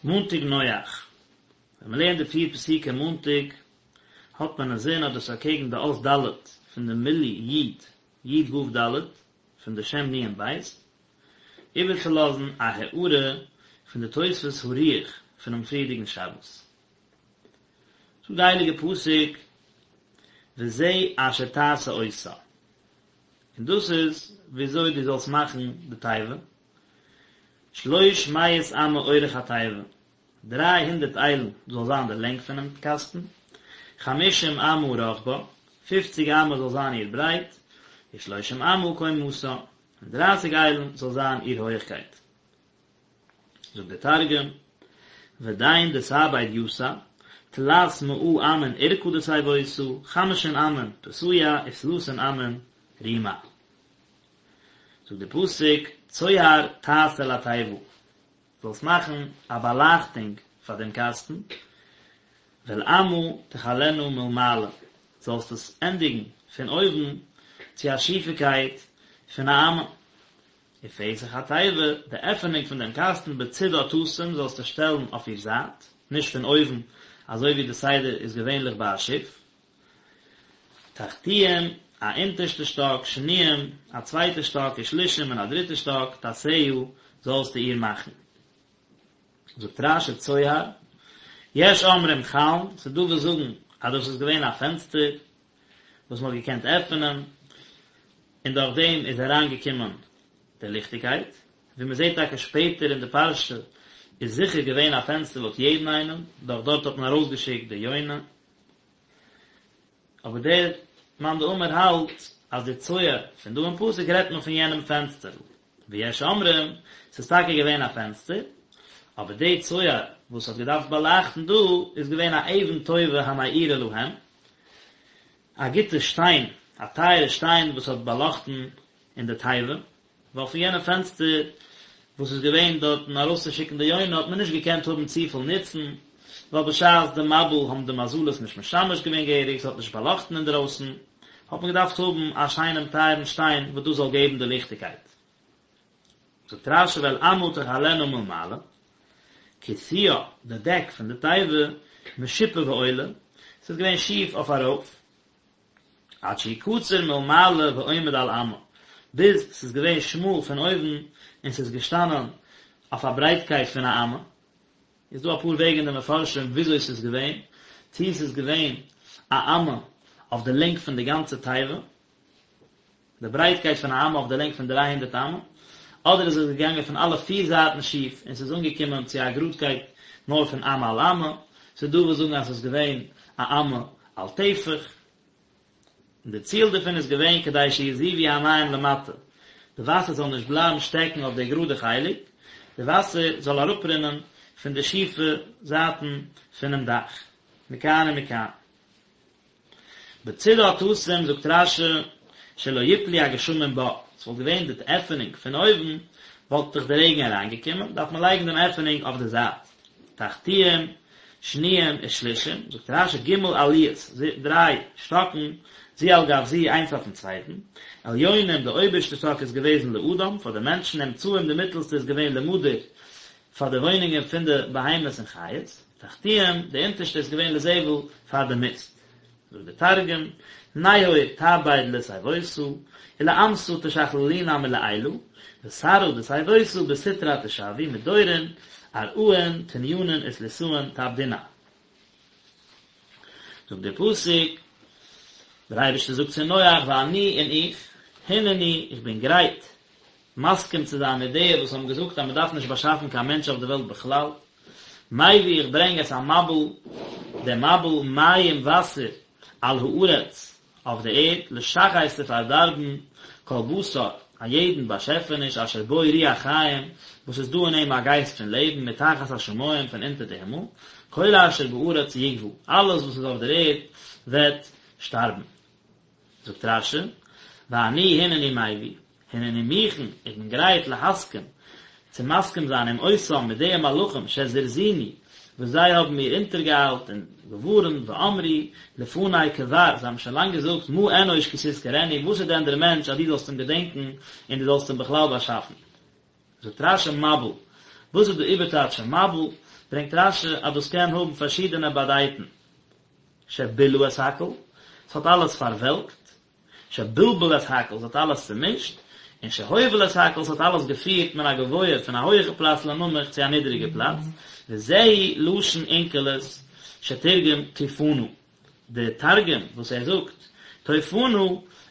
מאנטאג נח, ווען מען לערנט די פיר פסוקים מאנטאג, האט מען אינזין אז דאס איז אקעגן די אות ד' פון די מילוי י', י' ו' ד', פון די שם נון בית, איבערצולאזן א הערה פון די תוספות הרוח פונעם פריערדיגן שבת. זאגט די הייליגע פסוק וזה אשר תעשה אותה, און דאס איז וויאזוי דו זאלסט מאכן די תיבה, שלוש מאות אמה אורך התיבה, 300 איילן זאל זיין די לענג פונעם קאסטן, חמשים אמה רחבה, פופציג אמה זאל זיין איר ברייט, ושלושים אמה קומתה, און דרייסיג איילן זאל זיין איר הויעכקייט. זאגט דער תרגום, ודין דתעביד יתא, תלת מאה אמין אורכא דתיבותא, חמשין אמין פותיה, ותלתין אמין רומה. זאגט דער פסוק, צוהר תעשה לתיבה, זאלסט מאכן א באלייכטונג פאר דעם קאסטן, ואל אמה תכלנה מלמעלה, זאלסט עס ענדיגן פון אויבן צו א שיפיקייט פון א אמה. ופתח התיבה, די עפענונג פון דעם קאסטן בצדה תשים זאלסטו שטעלן אויף איר זייט, נישט פון אויבן, אזוי ווי די סדר איז געווענליך ביי א שיף. תחתיים, א אונטערשטע שטאק, שניים, א צווייטע שטאק, ושלישים, און א דריטע שטאק, תעשה, זאלסטו איר מאכן. זאגט רש"י צוהר, יש אומרים חלון, ס'איז דא וואס זאגן אז דאס איז געווען א פענסטער וואס מ'האט געקענט עפענען, און דורך דעם איז אריין געקומען די ליכטיגקייט, ווי מ'זעט טאקע שפעטער אין די פרשה איז זיכער געווען א פענסטער לויט יעדן איינעם, דורך דארט האט מען ארויסגעשיקט די יונה. אבער דער מאן דאמר האלט אז די צוהר פון דא אין פסוק רעדט מען פון יענעם פענסטערל, ויש אומרים, ס'איז טאקע געווען א פענסטער, אבער די צוהר וואס האט געדארפט באלייכטן דא איז געווען א אבן טובה המאירה להם, א גוטע שטיין, א טייערע שטיין וואס האט באלאכטן אין די תיבה, ווייל פון יענע פענסטער וואס איז געווען דארטן ארויסצושיקן די יונה האט מען נישט געקענט האבן צופיל נוצן, ווייל בשעת די מבול האבן די מזלות נישט משמש געווען געהעריג, ס'האט נישט באלאכטן אינדרויסן, האט מען געדארפט האבן א שיינעם טייערן שטיין וואס דאס זאל געבן די ליכטיגקייט. זאגט רש"י ואל אמה תכלנה מלמעלה, כסויה, די דעק פון די תיבה, משופע ועולה, ס'איז געווען שיף אויף ארויף, עד שהוא קצר מלמעלה ועומד על אמה, ביז ס'איז געווען שמאל פון אויבן און ס'איז געשטאנען אויף א ברייטקייט פון א אמה. איז דא אפאר וועגן אין די מפרשים וויאזוי ס'איז געווען, צי ס'איז געווען א אמה אויף די לענג פון די גאנצע תיבה, די ברייטקייט פון א אמה אויף די לענג פון דריי הונדערט אמה, אדער איז עס געגאנגען פון אלע פיר זייטן שיף און ס'איז אנגעקומען צו א גראדקייט נאר פון אמה על אמה, ס'איז דא וואס זאגן אז ס'איז געווען א אמה על טפח, און די ציל דערפון איז געווען כדי שיזובו המים למטה, די וואסער זאל נישט בלייבן שטעקן אויף די גראדע חלק, די וואסער זאל אראפרינען פון די שיפע זייטן פונעם דאך, מכאן ומכאן. בצדה תשים זאגט רש"י שלא יפלו הגשמים בה, ס'וואלט געווען די עפענונג פון אויבן וואלט דאך די רעגן אריינגעקומען, דארף מען לייגן דעם עפענונג אויף די זייט. תחתיים, שניים ושלישים, זאגט רש"י ג' עליות, דריי שטאקן, זו על גב זו איינס אויפן צווייטן, עליונים די אויבערשטע שטאק איז געוועזן לאדם, פאר די מענטשן, אמצעיים די מיטעלסטע איז געווען למדור, פאר די וואוינונגען פון די בהמות און חיות, תחתיים, די אונטערשטע איז געווען לזבל, פאר די מיסט. זאגט דער תרגום, נהור תעביד לתיבותא, ולאמתא תשכללינן מלעילא, ותרעא דתיבותא בסטרא תשווי, מדורין, ארעאין, תניינין ותליתאין תעבדינן. זאגט דער פסוק, דער אייבערשטער זאגט צו נח, ואני און איך, הנני, איך בין גרייט, מסכים צו זיין מיט די וואס האבן געזאגט אז מען דארף נישט באשאפן קיין מענטש אויף די וועלט בכלל, מביא איך ברענג את המבול, דעם מבול מים וואסער, על הארץ, אויף די ערד, לשחת צו פארדארבן, כל בשר, א יעדן באשעפעניש אשר בו רוח חיים, וואס איז דא אין אים א גייסט פון לעבן, מתחת השמים, פון אונטער די הימל, כל אשר בארץ יגווע, אלעס וואס איז אויף דער ערד וועט שטארבן. זאגט רש"י, ואני הנני מביא, הנני מוכן, איך בין גרייט להסכים, צו מסכים זיין עם אותם מיט די מלאכים שזרזוני, וואס זיי האבן מיר אונטערגעאיילט און געווארנט, ואמרו לפני כבר, זיי האבן שוין לאנג געזאגט, מה אנוש כי תזכרנו, וואס איז דען דער מענטש אז דו זאלסט אים געדענקען און דו זאלסט אים בכלל באשאפן. זאגט רש"י מבול, וואס איז די איבערטייטש פון מבול? ברענגט רש"י אז דאס קען האבן פארשידענע באדייטן, שבילה את הכל, ס'האט אלעס פארוועלקט, שבלבל את הכל, ס'האט אלעס צומישט, און שהוביל את הכל, ס'האט אלעס געפירט מן הגבוה, פון א הויעכע פלאץ לנמוך צו א נידעריגע פלאץ, וזהו לשון אונקלוס שתרגם טופנא. די תרגום וואס ער זאגט טופנא,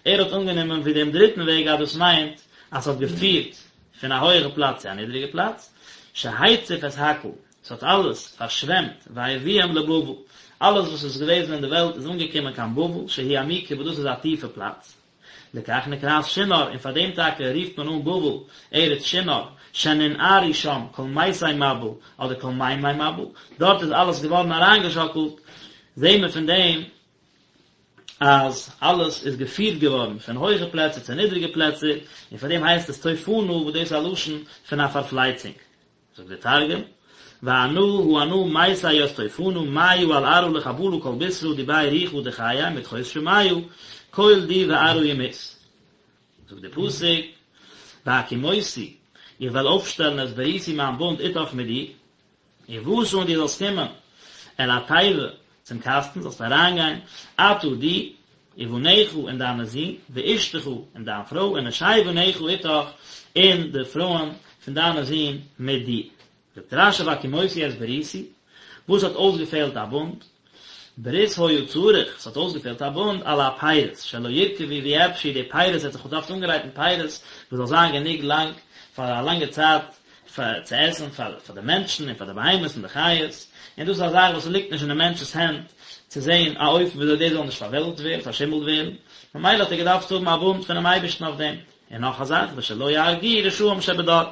ער האט אנגענומען ווי דעם דריטן וועג אז דאס מיינט אז ס'האט געפירט פון א הויעכע פלאץ צו א נידריגע פלאץ, שהציף את הכל, ס'האט אלעס פארשוועמט, והביאם לבבל, אלעס וואס איז געוועזן אין די וועלט איז אנגעקומען קיין בבל, שהיא עמוקה וואס דאס איז א טיפע פלאץ. לכך נקראת שנער, און פאר דעם טאקע רופט מען אן בבל ארץ שנער, שננערו שם כל מתי מבול, אדער כל מימי מבול, דארט איז אלעס געווארן אריינגעשאקלט, זעהן מיר פון דעם אז אלעס איז געפירט געווארן פון הויכע פלעצער צו נידריגע פלעצער, און פאר דעם הייסט עס טופנא וואס דאס איז א לשון פון א פארפלייצונג. זאגט דער תרגום, ואנא הא אנא מתי ית טופנא מיא על ארעא לחבלא כל בשרא די ביה רוחא דחיי מדחות שמיא כל די וארעא ימות. זאגט דער פסוק, והקימותי, איך וועל אויפשטעלן את בריתי מיין בונד איתך מיט דיר, ובאת און דו זאלסט קומען אל התיבה צום קאסטן, זאלסט אריינגיין, אתה דו, ובניך און דיינע זין, ואשתך און דיין פרוי, ונשי בניך איתך, און די פרויען פון דיינע זין מיט דיר. זאגט רש"י והקימותי את בריתי, וואס האט אויסגעפעלט א בונד? ברית היה צריך, ס'האט אויסגעפעלט א בונד על הפירות, שלא ירקבו ויאבשו, די פירות ער האט זיך געדארפט אנגרייטן פירות וואס זאל זיין גענוג לאנג פאר א לאנגע צייט פאר צו עסן פאר פאר די מענטשן און פאר די בהמות און די חיות, און דאס איז א זאך וואס ליגט נישט אין די מענטש'ס הענט צו זען א אופן וויאזוי דאס זאל נישט פארוועלקט ווערן, פארשימלט ווערן, ממילא האט ער געדארפט האבן א בונד פונעם אייבערשטן אויף דעם. און נאך א זאך, ושלא יהרגוהו רשעים שבדור,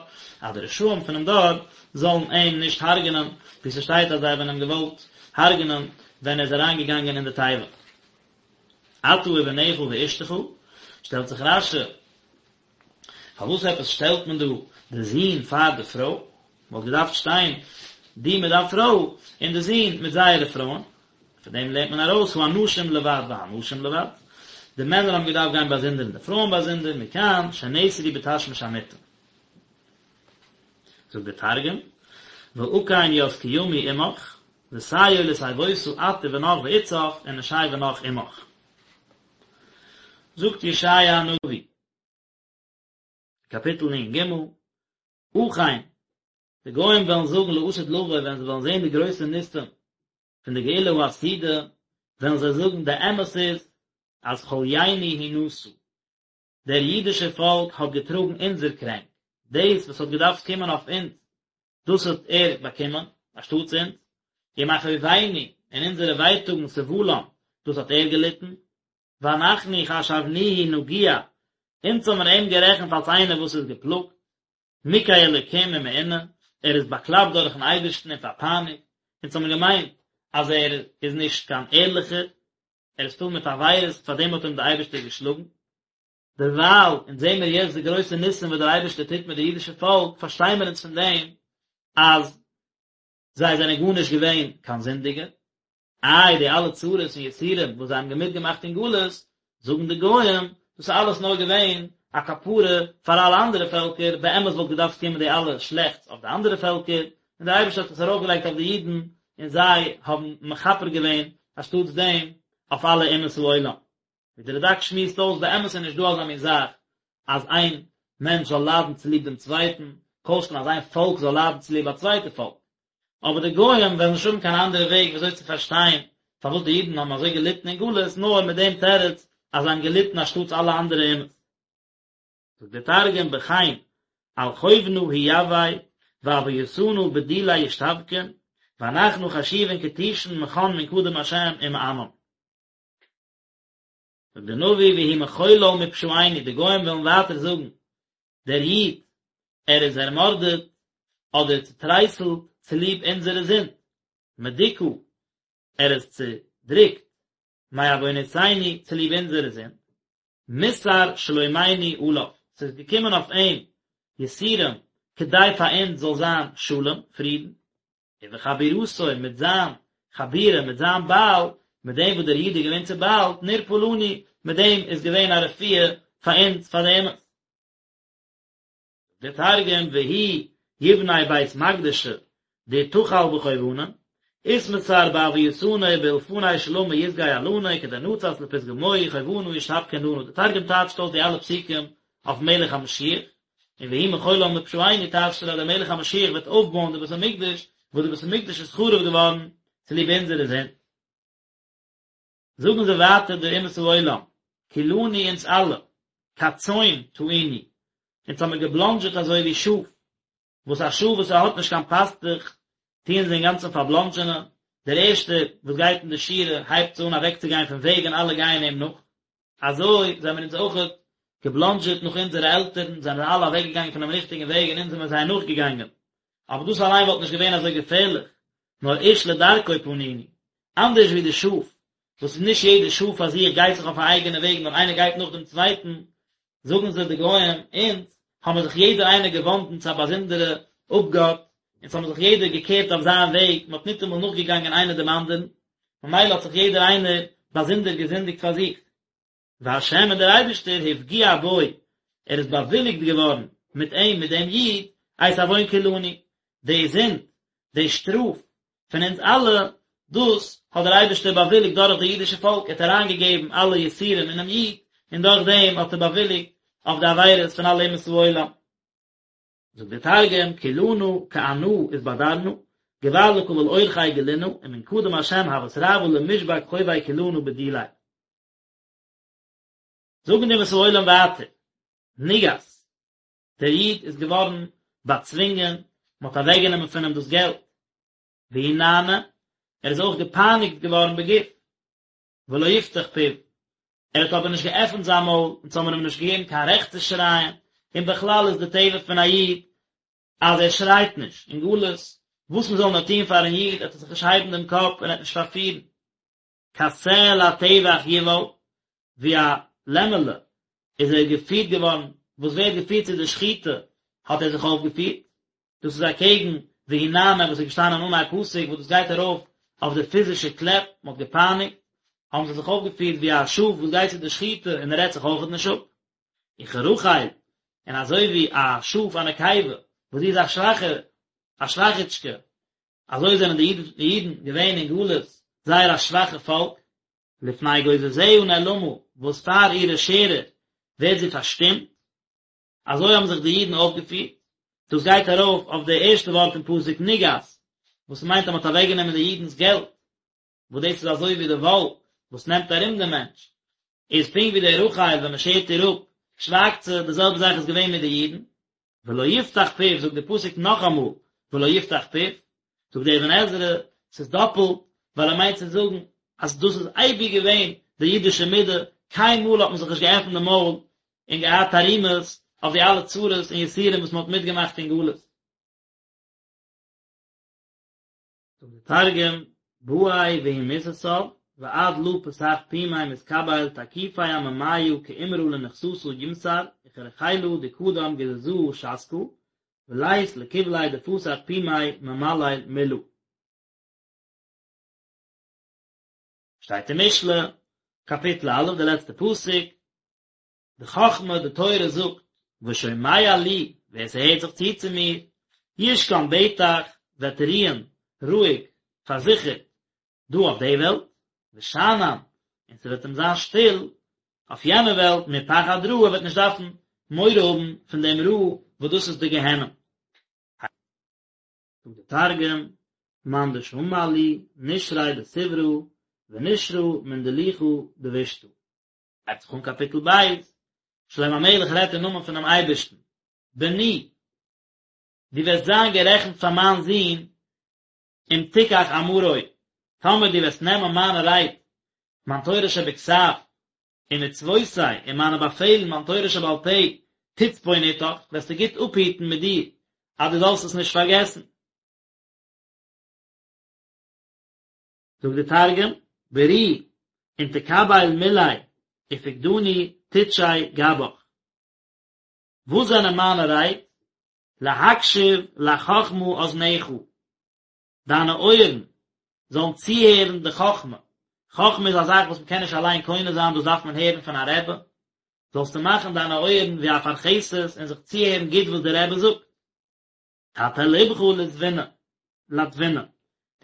אז די רשעים פונעם דור זאלן אים נישט הרג'נען, ווי ס'שטייט אז זיי האבן אים געוואלט הרג'נען ווען ער איז אריינגעגאנגען אין די תיבה. אתה ובניך ואשתך, שטעלט זיך רש"י, פארוואס עפעס שטעלט מען דא די זון פאר די פרוי? וואלט געדארפט שטיין דו מיט דיין פרוי און די זון מיט זייערע פרויען. פון דעם לערנט מען ארויס האנשים לבד והנשים לבד, די מענער האבן געדארפט גיין באזונדער און די פרויען באזונדער, מכאן שנאסרו בתשמיש המיטה. זאגט דער תרגום, ואקים ית קימי עמך, ותיעול לתיבותא את ובנך ואתתך ונשי בנך עמך. זאגט ישעיה הנביא, קאפיטל נ"ג, אכן, די גוים וועלן זאגן לעתיד לבוא ווען זיי וועלן זען די גרויסע ניסים פון די גאולה העתידה, וועלן זיי זאגן די אמת איז אז חליינו הוא נשא, דער אידישער פאלק האט געטראגן אונזער קרענק, דאס וואס האט געדארפט קומען אויף אונז, דאס האט ער באקומען, אנשטאטס אונז, ומכאובינו, און אונזערע ווייטאגן סבלם, דאס האט ער געליטן, ואנחנו חשבנוהו נגוע, אונז האבן מיר אים גערעכנט אלס איינער וואס איז געפלאגט, מוכה אלקים ומעונה, ער איז באקלאפט דורכן אייבערשטן און פארפייניגט, אונז האבן געמיינט אז ער איז נישט קיין ערליכער, ער איז פול מיט עבירות, פאר דעם האט אים דער אייבערשטער געשלאגן. דערווייל, אונז זעען מיר יעצט די גרויסע ניסים וואס דער אייבערשטער טוט מיט די אידישע פאלק, פארשטיי מיר אונז פון דעם אז זיי זענען גארנישט געווען קיין זינדיגע, איי די אלע צרות און יסורים וואס זיי האבן מיטגעמאכט אין גלות, זאגן די גוים, דאס איז אלעס נאר געווען א כפרה פאר אלע אנדערע פעלקער, באמת וואלט געדארפט קומען די אלע שלעכטס אויף די אנדערע פעלקער, און דער אייבערשטער האט עס ארויפגעלייגט אויף די אידן, און זיי האבן מכפר געווען אנשטאטס דעם אויף אלע אומות העולם. ווי דער רד"ק שמועסט אויס, באמת איז נישט דא אזא מין זאך אז איין מענטש זאל ליידן צוליב דעם צווייטן, כל שכן אז איין פאלק זאל ליידן צוליב א צווייטע פאלק. אבער די גוים וועלן נישט האבן קיין אנדערע וועג ווי אזוי צו פארשטיין פארוואס די אידן האבן אזוי געליטן אין גלות, נאר מיט דעם תירוץ אז זיי האבן געליטן אנשטאטס אלע אנדערע אומות. זאגט דער תרגום בכן על חובנא הוא יוי ועויתנא בדיליה ישתבקון ואנחנא חשיבין כתישין מכן מן קדם השם ומענן. זאגט דער נביא והוא מחולל מפשעינו, די גוים וועלן ווייטער זאגן, דער איד, ער איז ערמארדעט אדער צוטרייסלט צוליב אונזערע זינד, מדוכא, ער איז צודריקט, מעונותינו, צוליב אונזערע זינד, מוסר שלומינו עליו, ס'איז געקומען אויף אים יסורים כדי פאר אונז זאל זיין שלום, פרידן. ובחבורתו, מיט זיין חבורה, מיט זיין בייל, מיט דעם וואס דער איד איז געווען צוביילט, נרפא לנו, מיט דעם איז געווען א רפואה פאר אונז, פאר די אומות. דער תרגום, והוא יבנה בית מקדשא. דאתחיל בחובנא, אתמסר בעויתנא ובאולפני שלמא יסגי עלנא כדנצת לפתגמוהי חובנא ישתבקון לנא, די תרגום טייטשט אויס די אלע פסוקים אויפן מלך המשיח, און והוא מחול לן מפשעינו טייטשט ער אז דער מלך המשיח וועט אויפבויען די בית המקדש, וואס די בית המקדש איז חרוב געווארן צוליב אונזערע זינד. זאגן זיי ווייטער די אומות העולם, כולנו אונז אלע, כצאן תעינו, אונז האמיר געבלאנדזשעט אזוי ווי שאף, וואס א שאף וואס ער האט נישט קיין פאסטוך, טוען זיי אינגאנצן פארבלאנדזשענען, דער ערשטער וואס גייט אין די שורה הייבט אן אוועקצוגיין פון וועג און אלע גייען אים נאך, אזוי זעמיר אונז אויכעט געבלאנדזשעט נאך אונזערע עלטערן, זענען אלע אוועקגעגאנגען פונעם ריכטיגן וועג און אונז זעמיר זיי נאכגעגאנגען, אבער דאס אליין וואלט נישט געווען אזוי געפערליך, נאר איש לדרכו פנינו, אנדערש ווי די שאף, וואס איז נישט יעדע שאף פאר זיך גייט זיך אויף א אייגענע וועג נאר איינער גייט נאך דעם צווייטן, זאגן זיי די גוים, אונז האבן זיך יעדער איינער געוואנדן צו א באזונדערע אפגאט, אונז האבן זיך יעדער געקערט אויף זיין וועג, מען האט ניטאמאל נאכגעגאנגען איינער דעם אנדערן, ממילא האט זיך יעדער איינער באזונדער געזינדיגט פאר זיך. והשם און דער אייבערשטער הפגיע בו, ער איז באוויליגט געווארן מיט אים, מיט דעם איד, את עוון כולנו, די זינד, די שטראף פון אונז אלע, דאס האט דער אייבערשטער באוויליגט דורך די אידישע פאלק, ער האט אריינגעגעבן אלע יסורים אינעם איד, און דורך דעם האט ער באוויליגט אויף די עבירות פון אלע אומות העולם. זאגט דער תרגום, כולנא כענא אתבדרנא, גבר לקבל אורחיה גלינא, ומן קדם השם הות רעוא למשבק חובי כולנא בדיליה. זאגן די אומות העולם ווייטער, נגס, דער איד איז געווארן באצווינגען, מען האט אוועקגענומען פון אים דאס געלט, והוא נענה, ער איז אויך געפייניגט געווארן בגוף, ולא יפתח פיו, ער האט אבער נישט געעפנט זיין מויל, אונז האבן אים נישט געגעבן קיין רעכט צו שרייען, און בכלל איז די טבע פון א איד אז ער שרייט נישט, אין גלות, וואס מען זאל נאר טון פארן איד, ער וועט זיך נישט הייבן דעם קאפ און ער וועט נישט פארפירן. כשה לטבח יובל, ווי א לעמעלע איז ער געפירט געווארן, וואס ווערט געפירט צו די שחיטה, האט ער זיך אויפגעפירט, דאס איז אקעגן והוא נענה וואס איז געשטאנען אנהייב פסוק, וואס דאס גייט ארויף אויף די פיזישע קלעפ, מען האט געפייניגט, האבן זיי זיך אויפגעפירט ווי א שאף וואס גייט צו די שחיטה און ער רעדט זיך אויכעט נישט אפ. וכרחל, און אזוי ווי א שאף א נקבה, וואס זי איז א שוואכע, א שוואכיטשקע, אזוי זענען די אידן געווען אין גלות זייער א שוואכע פאלק, לפני גוזזיה נאלמה, וואס פאר אירע שערער ווערט זי פארשטומט, אזוי האבן זיך די אידן אויפגעפירט, דאס גייט ארויף אויף די ערשטע ווארט אין פסוק נגס, וואס מיינט אז מען האט אוועקגענומען די אידנ'ס געלט, וואס דאס איז אזוי ווי די וואל וואס נעמט ארום דעם מענטש, איז פונקט ווי די רחל ווען מען שערט איר אפ, שווייגט זי, די זעלבע זאך איז געווען מיט די אידן, ולא יפתח פיו, זאגט די פסוק נאכאמאל, ולא יפתח פיו, זאגט דער אבן עזרא, ס'איז דאפלט, ווייל ער מיינט צו זאגן אז דאס איז אייביג געווען די אידישע מידה, קיינמאל האט מען זיך נישט געעפנט די מויל און געהאט תרעומות אויף די אלע צרות און יסורים וואס מען האט מיטגעמאכט אין גלות. זאגט דער תרגום, בעי והוא מתסב, ועד לא פתח פומיה מתקבל תקיפי עממיא כעמרא לנכסתא ימסר וכרחילא דקדם גזזהא שתקא, ולית לקבליה דפתח פומיה ממלל מלא. שטייט אין משלי, קאפיטל א', די לעצטע פסוק, די חכמה, די תורה זאגט, ושומע לי, ווער ס'הערט זיך צו צו מיר, ישכון בטח, וועט רוען, רואיג, פארזיכערט, דא אויף די וועלט, ושאנן, און ס'וועט אים זיין שטיל, אויף יענע וועלט, מפחד רע, ער וועט נישט דארפן מורא האבן פון דעם רע, וואס דאס איז די גיהנום. זאגט דער תרגום, מאן דשמע לי, נשרי דסברא, ונשרא מן דלוחא דבישתא. הייבט זיך אן קאפיטל ב', שלמה המלך רעדט אין נאמען פונעם אייבערשטן, בני, דו וועסט זיין גערעכנט פאר מיין זון, אם תיקח אמרי, טאמער דו וועסט נעמען מיינע רייד, מיין תורה שבכתב, ומצוותי, און מיינע באפעלן, מיין תורה שבעל פה, תצפון אתך, וועסטו גוט אפהיטן מיט דיר, אז דו זאלסט עס נישט פארגעסן. זאגט דער תרגום, ברי, אין תקבל מלי, ופקדני תטשי גבך. וואס זענען מיינע רייד? להקשיב לחכמה אזנך, דיינע אויערן זאלן צוהערן די חכמה, חכמה איז א זאך וואס מען קען נישט אליין קונה זיין, דאס דארף מען הערן פון א רבי, זאלסטו מאכן דיינע אויערן ווי א פרכסת און זיך צוהערן גוט וואס דער רבי זאגט. תטה לבך לתבונה. לתבונה,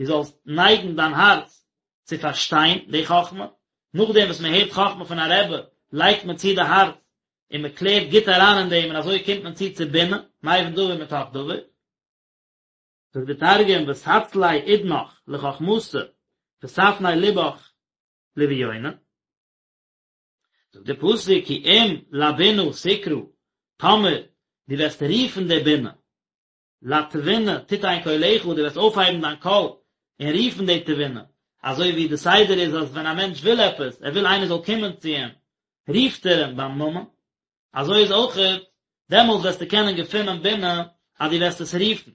דו זאלסט נייגן דיין הארץ צו פארשטיין די חכמה, נאכדעם וואס מען הערט חכמה פון א רבי, לייגט מען צו די הארץ און מען קלערט גוט אריין אין דעם און אזוי קומט מען צו צו בינה, מבין דבר מתוך דבר. זאגט די תרגום ותצלי אודנך לחכמתא ותפני לבך לביונא. זאגט די פסוק כי אם לבינה תקרא, טאמער דו וועסט רופן די בינה, לתבונה תתן קולך, דו וועסט אויפהייבן דיין קול און רופן די תבונה, אזוי ווי די סדר איז אז ווען א מענטש וויל עפעס, ער וויל איינער זאל קומען צו אים, רופט ער אים ביים נאמען, אזוי איז אויכעט, דעמאלס וועסטו קענען געפינען בינה אז דו וועסט עס רופן.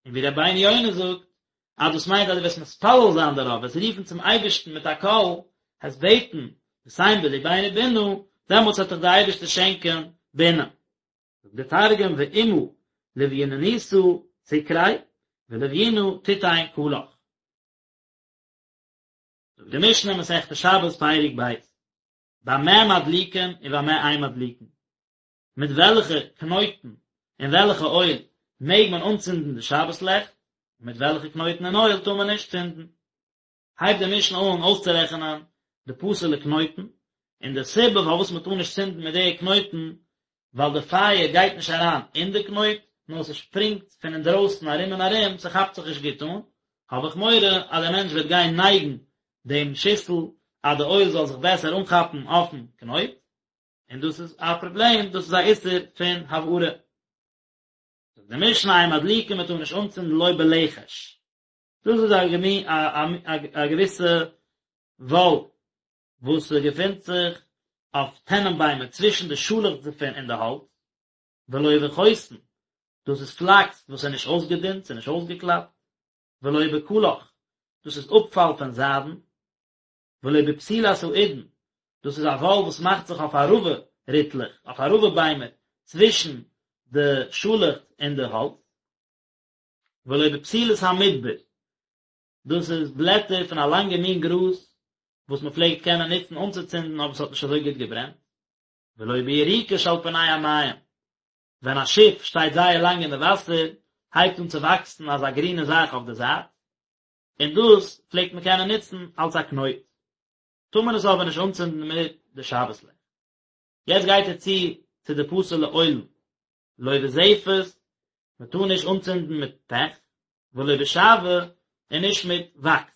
און ווי רבינו יונה זאגט, אז דאס מיינט אז דו וועסט מתפלל זיין דערויף, וועסט רופן צום אייבערשטן מיט א קול, וועסט בעטן, ותן בלבנו בינה, דעמאלטס וועט דיך דער אייבערשטער שענקען בינה. זאגט דער תרגום ואמא לביונתא תקרי ולביונא תתן קלך. זאגט די משנה מסכת שבת פרק ב', במה מדליקין ובמה אין מדליקין, מיט וועלכע קנויטן און וועלכע אויל מעג מען אנצינדן די שבת לעכט, און מיט וועלכע קנויטן און אויל טאר מען נישט צינדן. הייבט די משנה אן אויסצורעכענען די פסול'ע קנויטן, און די סיבה פארוואס מען טאר נישט צינדן מיט די קנויטן, ווייל די פייער גייט נישט אריין אין די קנויט, נאר ס'שפרינגט פון אינדרויסן ארום און ארום, ס'כאפט זיך נישט גוט אן, האב איך מורא אז דער מענטש וועט גיין נייגן דעם שיסל אז די אויל זאל זיך בעסער אנכאפן אויפן קנויט, און דאס איז א פראבלעם, דאס איז א איסור פון הבערה. זאגט די משנה אין מדליקין מען טאר נישט אנצינדן לא בלכש, דאס איז א געוויסע וואל וואס געפינט זיך אויף טענען ביימער צווישן די שאלעכץ דערפון און די האלץ, ולא בחוסן, דאס איז פלאקס וואס איז נישט אויסגעדינט, ס'איז נישט אויסגעקלאפט, ולא בקלח, דאס איז אפפאל פון זיידן, ולא בפתילת האידן, דאס איז א וואל וואס מאכט זיך אויף ערבה ריטלעך, אויף ערבה ביימער, צווישן די שאלעכץ און די האלץ, ולא בפתילת המדבר, דאס איז בלעטער פון א לאנגע מין גראז וואס מען פלעגט קענען נוצן אנצוצינדן אבער עס האט נישט אזוי גוט געברענט, ולא ביריקה שעל פני המים, ווען א שיף שטייט זייער לאנג אין די וואסער הייבט אן צו וואקסן אזא גרינע זאך אויף די זייט, און דאס פלעגט מען קענען נוצן אלס א קנויט, טאר מען עס אבער נישט אנצינדן מיט די שבת לעכט. יעצט גייט ער צו צו די פסול'ע אוילן, לא בזפת, מען טאר נישט אנצינדן מיט פעך, ולא בשעוה, און נישט מיט וואקס.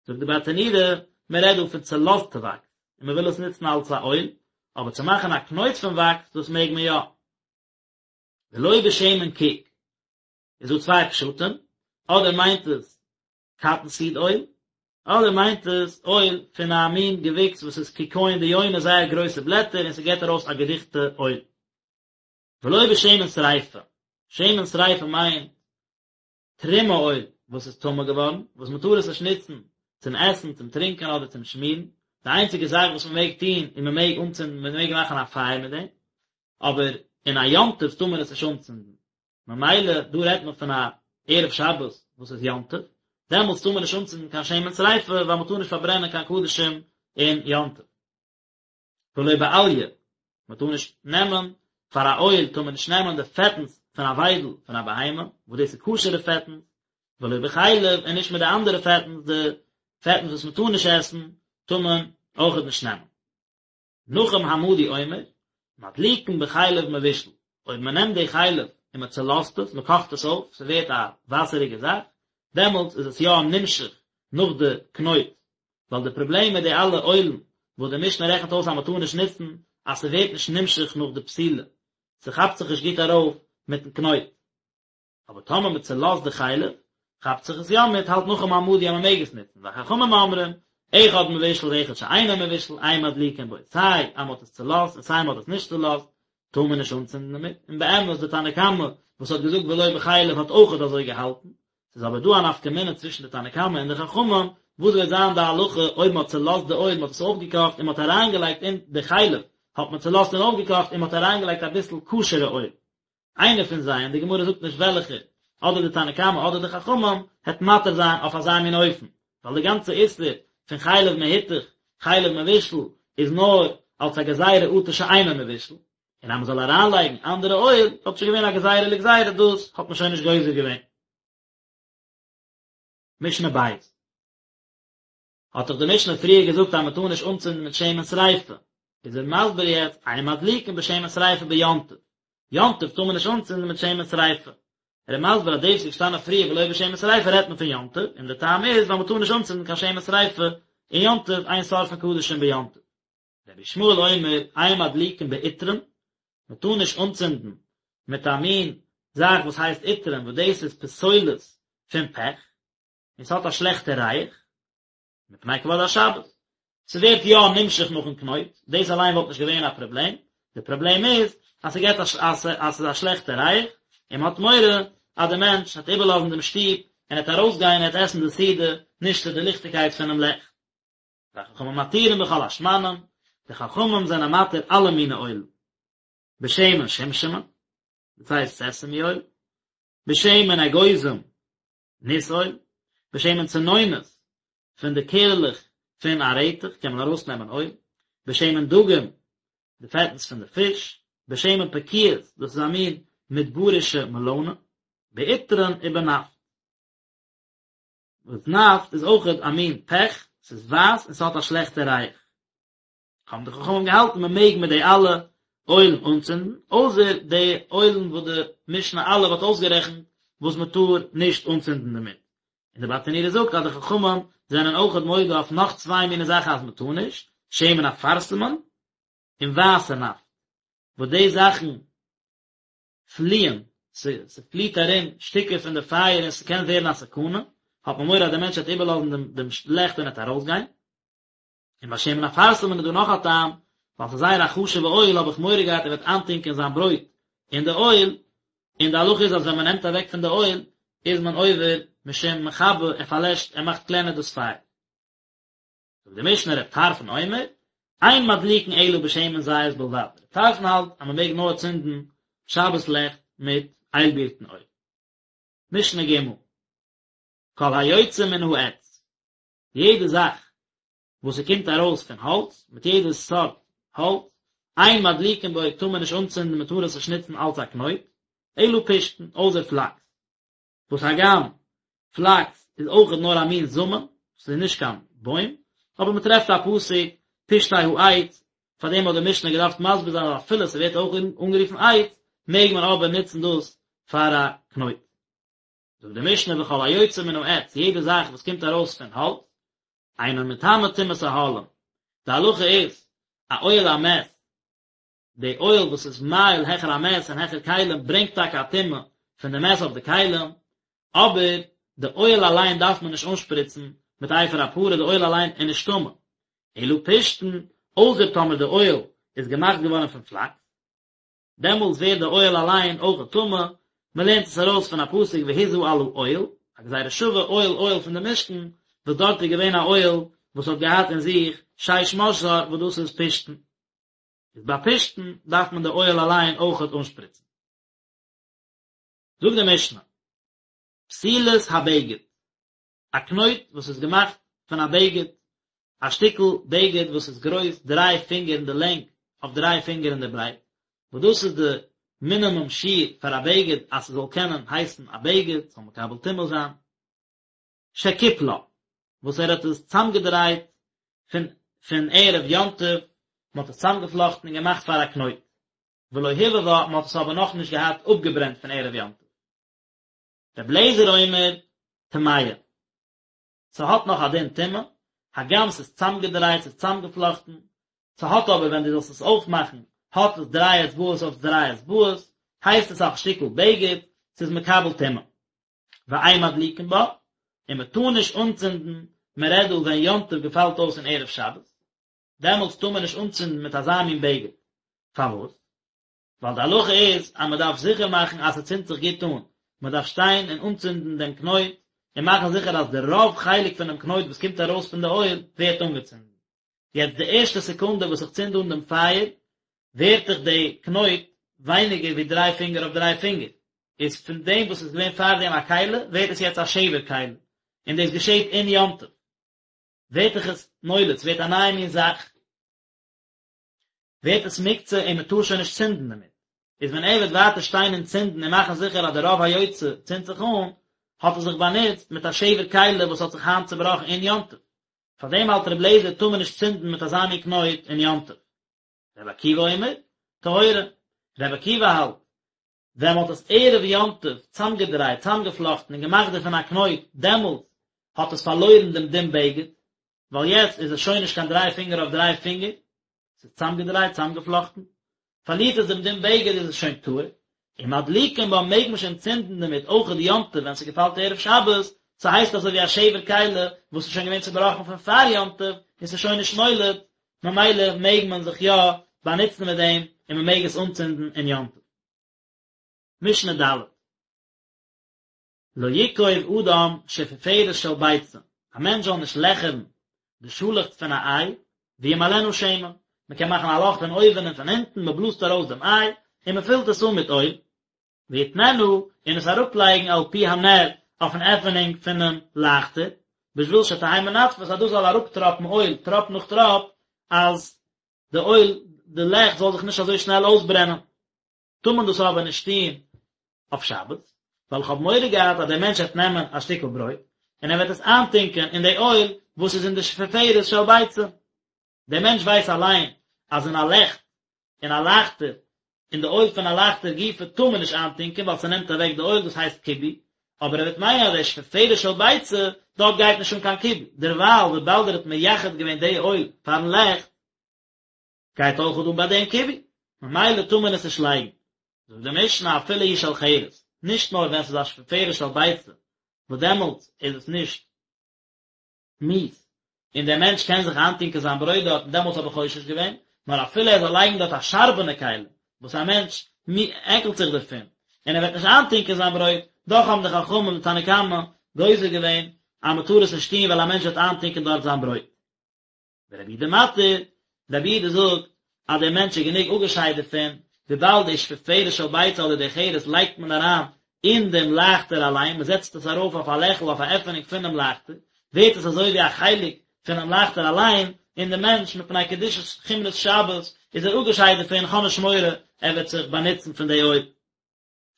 זאגט די ברטנורא, מען רעדט דא פון צולאזטע וואקס, און מען וויל עס נוצן אלס א אויל, אבער צו מאכן א קנויט פון וואקס, דאס מעג מען יא. ולא בשמן קיק, איז דא צוויי פשטים, אדער מיינט עס קאטן סיד אויל, אדער מיינט עס אויל פון א מין געוויקס וואס איז קיקיון דיונה זייער גרויסע בלעטער און ס'געט ארויס א געדיכטע אויל. ולא בשמן שריפה, שמן שריפה מיינט תרומה אויל וואס איז טמא געווארן, וואס מען טאר עס נישט נוצן צום עסן, צום טרינקען אדער צום שמירן, די איינציגע זאך וואס מען מעג טון איז מען מעג אנצינדן, מען מעג מאכן א פייער מיט דעם, אבער אין א יום טוב טאר מען עס נישט אנצינדן, ממילא דא רעדט מען פון א ערב שבת וואס איז יום טוב, דעמאלטס טאר מען נישט אנצינדן קיין שמן שריפה ווייל מען טאר נישט פארברענען קיין קדשים אין יום טוב. ולא באליה, מען טאר נישט נעמען, פאר א אויל טאר מען נישט נעמען די פעטנס פון א וויידל פון א בהמה, וואס דאס איז כשר'ע פעטנס, ולא בחלב, און נישט מיט די אנדערע פעטנס, די פעטנס וואס מען טאר נישט עסן, טאר מען אויכעט נישט נעמען. נחום המדי אומר, מדליקין בחלב מבושל, אויב מען נעמט די חלב און מען צעלאזט עס, מען קאכט עס אויף, ס'ווערט א וואסעריגע זאך, דעמאלטס איז עס יא נמשך נאך די קנויט, ווייל די פראבלעם מיט די אלע אוילן וואס די משנה רעכנט אויס אז מען טאר נישט נוצן, אז ס'ווערט נישט נמשך נאך די פתילה, ס'כאפט זיך נישט גוט ארויף מיטן קנויט. אבער טאמער מען צעלאזט די חלב, כאפט זיך עס יא מיט, האלט נחום המדי אז מען מעג עס נוצן, וחכמים אומרים, אחד מבושל ואחד שאינו מבושל, אין מדליקין בו, סיי אז מען האט עס צעלאזט און סיי מען האט עס נישט צעלאזט, טאר מען נישט אנצינדן דערמיט, און באמת די תנא קמא וואס האט געזאגט ולא בחלב האט אויכעט אזוי געהאלטן, ס'איז אבער דא א נפקא מינה צווישן די תנא קמא און די חכמים, וואס וועט זיין די הלכה אויב מען האט צעלאזט די אויל, מען האט עס אויפגעקאכט און מען האט אריינגעלייגט אין די חלב, האט מען צעלאזט און אויפגעקאכט און מען האט אריינגעלייגט אביסל כשר'ע אויל. איינער פון זיי, און די גמרא זאגט נישט וועלכער, אדער די תנא קמא אדער די חכמים, העט מתיר זיין אויף אזא מין אופן, ווייל די גאנצע איסור פון חלב מהותך, חלב מבושל, איז נאר אלס א גזירה אטו שאינו מבושל, און אז מען זאל אריינלייגן אנדערע אויל, וואלט שוין געווען א גזירה לגזירה, דאס האט מען שוין נישט גוזר געווען. משנה בית. האט דאך די משנה פריער געזאגט אז מען טאר נישט אנצינדן מיט שמן שריפה, איז ער מסביר יעצט אין מדליקין בשמן שריפה ביום טוב, יום טוב טאר מען נישט אנצינדן מיט שמן שריפה, ער איז מסביר אז דאס וואס איז געשטאנען פריער ולא בשמן שריפה רעדט מען פון יום טוב, און די טעם איז ווייל מען טאר נישט אנצינדן קיין שמן שריפה אין יום טוב, אין שורפין קדשים ביום טוב. רבי ישמעאל אומר אין מדליקין בעטרן, מען טאר נישט אנצינדן מיט א מין זאך וואס הייסט עטרן וואס דאס איז פסולת פון פעך, און ס'האט א שלעכטע ריח, מפני כבוד השבת. ס'ווערט יא נמשך נאכן קנויט, דאס אליין וואלט נישט געווען א פראבלעם, די פראבלעם איז אז ס'געט א אז ס'איז א שלעכטע ריח, און מ'האט מורא אז די מענטש וועט איבערלאזן דעם שטוב און ער וועט ארויסגיין און ער וועט עסן די סעודה נישט צו די ליכטיגקייט פונעם לעכט. וחכמים מתירים בכל השמנים, די חכמים זענען מתיר אלע מיני אויל. בשמן שומשמין, דאס הייסט סעסעמי אויל, בשמן אגוזים, ניס אויל, בשמן צנונות, פון די קערעלעך פון א רעטעך קען מען ארויסנעמען אויל, בשמן דגים, די פעטנס פון די פיש, בשמן פקועות, דאס איז א מין מדברישע מעלאנע, בעטרן ובנפט. וואס נפט איז אויכעט א מין פעך, ס'איז ווייס און ס'האט א שלעכטע ריח. האבן די חכמים געהאלטן מען מעג מיט די אלע אוילן אנצינדן, אויסער די אוילן וואס די משנה א' האט אויסגערעכנט וואס מען טאר נישט אנצינדן דערמיט. און די ברטנורא זאגט אז די חכמים זענען אויכעט מודה אויף נאך צוויי מיני זאכן אז מען טאר נישט, שמן אפרסמון און ווייסע נפט, וואס די זאכן פליען, ס'פליעט ארום שטיקער פון די פייער און ס'קען ווערן א סכנה, האט מען מורא אז דער מענטש וועט איבערלאזן דעם דעם לעכט און ער וועט ארויסגיין. און ביי שמן אפרסמון איז דא נאך א טעם, ווייל ס'איז זייער א חשוב'ע אויל האב איך מורא געהאט ער וועט איינטונקען זיין ברויט אין די אויל, און די הלכה איז אז ווען מ'נעמט אוועק פון די אויל איז מען עובר משום מכבה, ער פארלעשט, ער מאכט קלענער דאס פייער. זאגט די משנה רב טרפון אומר, אין מדליקין אלא בשמן זית בלבד, רב טרפון האלט אז מען מעג נאר צינדן שבת לעכט מיט איילבירטן אויל. משנה ג' כל היוצא מן העץ, יעדע זאך וואס ס'קומט ארויס פון האלץ, מיט יעדע סארט האלץ, אין מדליקין בו טאר מען נישט אנצינדן מען טאר עס נישט נוצן אלץ א קנויט, אלא פשתן, אויסער פלאקס. וואס הגם פלאקס איז אויכעט נאר א מין זאמען, ס'איז נישט קיין בוים, אבער מען טרעפט א פסוק פשתי העץ, פאר דעם האט די משנה געדארפט מסביר זיין אז אפילו ס'ווערט אויך אנגערופן עץ, מעג מען אבער נוצן דאס פאר א קנויט. זאגט די משנה וכל היוצא מן העץ, יעדע זאך וואס קומט ארויס פון האלץ, אינו מטמא טומאת אהלים, די הלכה איז, א אוהל המת, די אוהל וואס איז מאהיל העכער א מת און העכער כלים ברענגט טאקע א טומאה פון די מת אויף די כלים, אבער די אוהל אליין דארף מען נישט אנשפריצן מיט אפר הפרה, די אוהל אליין איז נישט טמא, אלא פשתן, אויסער טאמער די אוהל איז געמאכט געווארן פון פלאקס, דעמאלטס ווערט די אוהל אליין אויך טמא, מען לערנט עס ארויס פון א פסוק והזה על האוהל, א גזירה שווה אוהל אוהל פון די משכן, וואס דארט איז געווען א אוהל וואס האט געהאט אין זיך שש משזר וואס דאס איז פשתן. איז ביי פשתן דארף מען די אוהל אליין אויכעט אנשפריצן. זאגט די משנה, פתילת הבגד, א קנויט וואס איז געמאכט פון א בגד, א שטיקל בגד וואס איז גרויס דריי פינגער אין די לענג אויף דריי פינגער אין די ברייט, וואס דאס איז די מינימום שיעור פאר א בגד אז ס'זאל קענען הייסן א בגד, ס'זאל מקבל טומאה זיין. שקיפלה, וואס ער האט עס צאמגעדרייט פון פון ערב יום טוב, מען האט עס צאמגעפלאכטן און געמאכט פאר א קנויט, ולא הבהבה, מען האט עס אבער נאכנישט געהאט אפגעברענט פון ערב יום טוב. רבי אליעזר אומר, טמאה. ס'האט נאך א דין טומאה, הגם ס'איז צאמגעדרייט, ס'איז צאמגעפלאכטן, ס'האט אבער ווען דו זאלסט עס אויפמאכן, האט עס דריי אצבעות אויף דריי אצבעות, הייסט עס א שטיקל בגד, ס'איז מקבל טומאה. ואין מדליקין בה, און מען טאר נישט אנצינדן, מען רעדט דא ווען יום טוב געפאלט אויס אין ערב שבת, דעמאלטס טאר מען נישט אנצינדן מיט אזא מין בגד, פארוואס? ווייל די הלכה איז אז מען דארף זיכער מאכן אז ס'צינדט זיך גוט אן, מען דארף שטיין און אנצינדן דעם קנויט, און מאכן זיכער אז די רוב חלק פונעם קנויט וואס קומט ארויס פון די אויל ווערט אנגעצינדן. יעצט די ערשטע סעקונדע וואס איך צינד אן דעם פייער, ווערט דאך די קנויט ווייניגער ווי דריי פינגער אויף דריי פינגער, איז פון דעם וואס איז געווען פארדעם א כלי, ווערט עס יעצט א שבר כלי, און דאס געשעט אין יום טוב, ווערט דאך עס נולד, ס'ווערט א נייע מין זאך, ווערט עס מוקצה און מען טאר שוין נישט צינדן דערמיט, איז ווען ער וועט ווייטער שטיין און צינדן און מאכן זיכער אז די רוב היוצא צינדט זיך אן, האט ער זיך באנוצט מיט א שבר כלי וואס האט זיך היינט צובראכן אין יום טוב, פאר דעם האלט רבי אליעזר טאר מען נישט צינדן מיט אזא מין קנויט אין יום טוב. רבי עקיבא אומר, טהורה, רבי עקיבא האלט, ווען מען האט עס ערב יום טוב צאמגעדרייט, צאמגעפלאכטן און געמאכט דערפון א קנויט, דעמאלטס האט עס פארלוירן דעם דין בגד, ווייל יעצט איז עס שוין נישט קיין דריי פינגער אויף דריי פינגער, ס'איז צאמגעדרייט, צאמגעפלאכטן, פארלירט עס דעם דין בגד איז עס שוין טהור, און מדליקין בה מעג מען שוין צינדן דערמיט אויכעט יום טוב ווען ס'געפאלט ערב שבת, ס'הייסט אזוי ווי א שבר כלי וואס איז שוין געווען צובראכן פון פאר יום טוב און ס'איז שוין נישט מולד, ממילא מעג מען זיך יא באנוצן מיט דעם און מ'מעג עס אנצינדן אין יום טוב. משנה ד'. לא יקוב אדם שפופרת של ביצה, א מענטש זאל נישט לעכערן די שאלעכץ פון א איי, וימלאנה שמן, מען קען מאכן א לאך פון אויבן און פון אונטן, מען בלאזט ארויס דעם איי, און מען פילט עס אן מיט אויל, ויתננה, און עס אראפלייגן על פי הנר, אויפן עפענונג פונעם לייכטער, בשביל שתהא מנטפת, אז דאס זאל אראפטראפן אויל, טראפ נאך טראפ, אז די אויל, די לעכט זאל זיך נישט אזוי שנעל אויסברענען. טאר מען דאס אבער נישט טון אויף שבת, ווייל איך האב מורא געהאט אז דער מענטש וועט נעמען א שטיקל ברויט און ער וועט עס איינטונקען אין די אויל וואס איז אין די שפופרת של ביצה. דער מענטש ווייס אליין אז אין א לעכט, אין א לייכטער, אין די אויל פון א לייכטער גופא טאר מען נישט איינטונקען ווייל ס'נעמט אוועק די אויל, דאס הייסט כיבוי, אבער ער וועט מיינען אז די שפופרת של ביצה, דארט גייט נישט אן קיין כיבוי, דערווייל וויבאלד ער האט מייחד געווען די אויל פארן לעכט, גייט אויך אן ביי דעם כיבוי, ממילא טאר מען עס נישט לייגן. זאגט די משנה אפילו היא של חרס, נישט נאר ווען ס'איז א שפופרת של ביצה, וואס דעמאלטס איז עס נישט מיאוס, און דער מענטש קען זיך איינטונקען זיין ברויט דארט און דעמאלטס האב איך חושש געווען, נאר אפילו ער זאל לייגן דארט א שארבענע כלי, וואס א מענטש עקלט זיך דערפון, און ער וועט נישט איינטונקען זיין ברויט, דאך האבן די חכמים די תנא קמא גוזר געווען אז מען טאר עס נישט טון ווייל א מענטש וועט איינטונקען דארט זיין ברויט. ורבי יהודה מתיר, רבי יהודה זאגט אז דער מענטש איז גענוג אפגעשיידט דערפון, וויבאלד די שפופרת של ביצה אדער די חרס לייגט מען אריין אין דעם לייכטער אליין, מען זעצט עס ארויף אויף א לעכל אויף א עפענונג פונעם לייכטער, ווערט עס אזוי ווי א חלק פונעם לייכטער אליין, און דער מענטש מפני קדושת חומרות שבת איז ער אפגעשיידט דערפון, כ'האב נישט מורא ער וועט זיך באנוצן פון די אויל.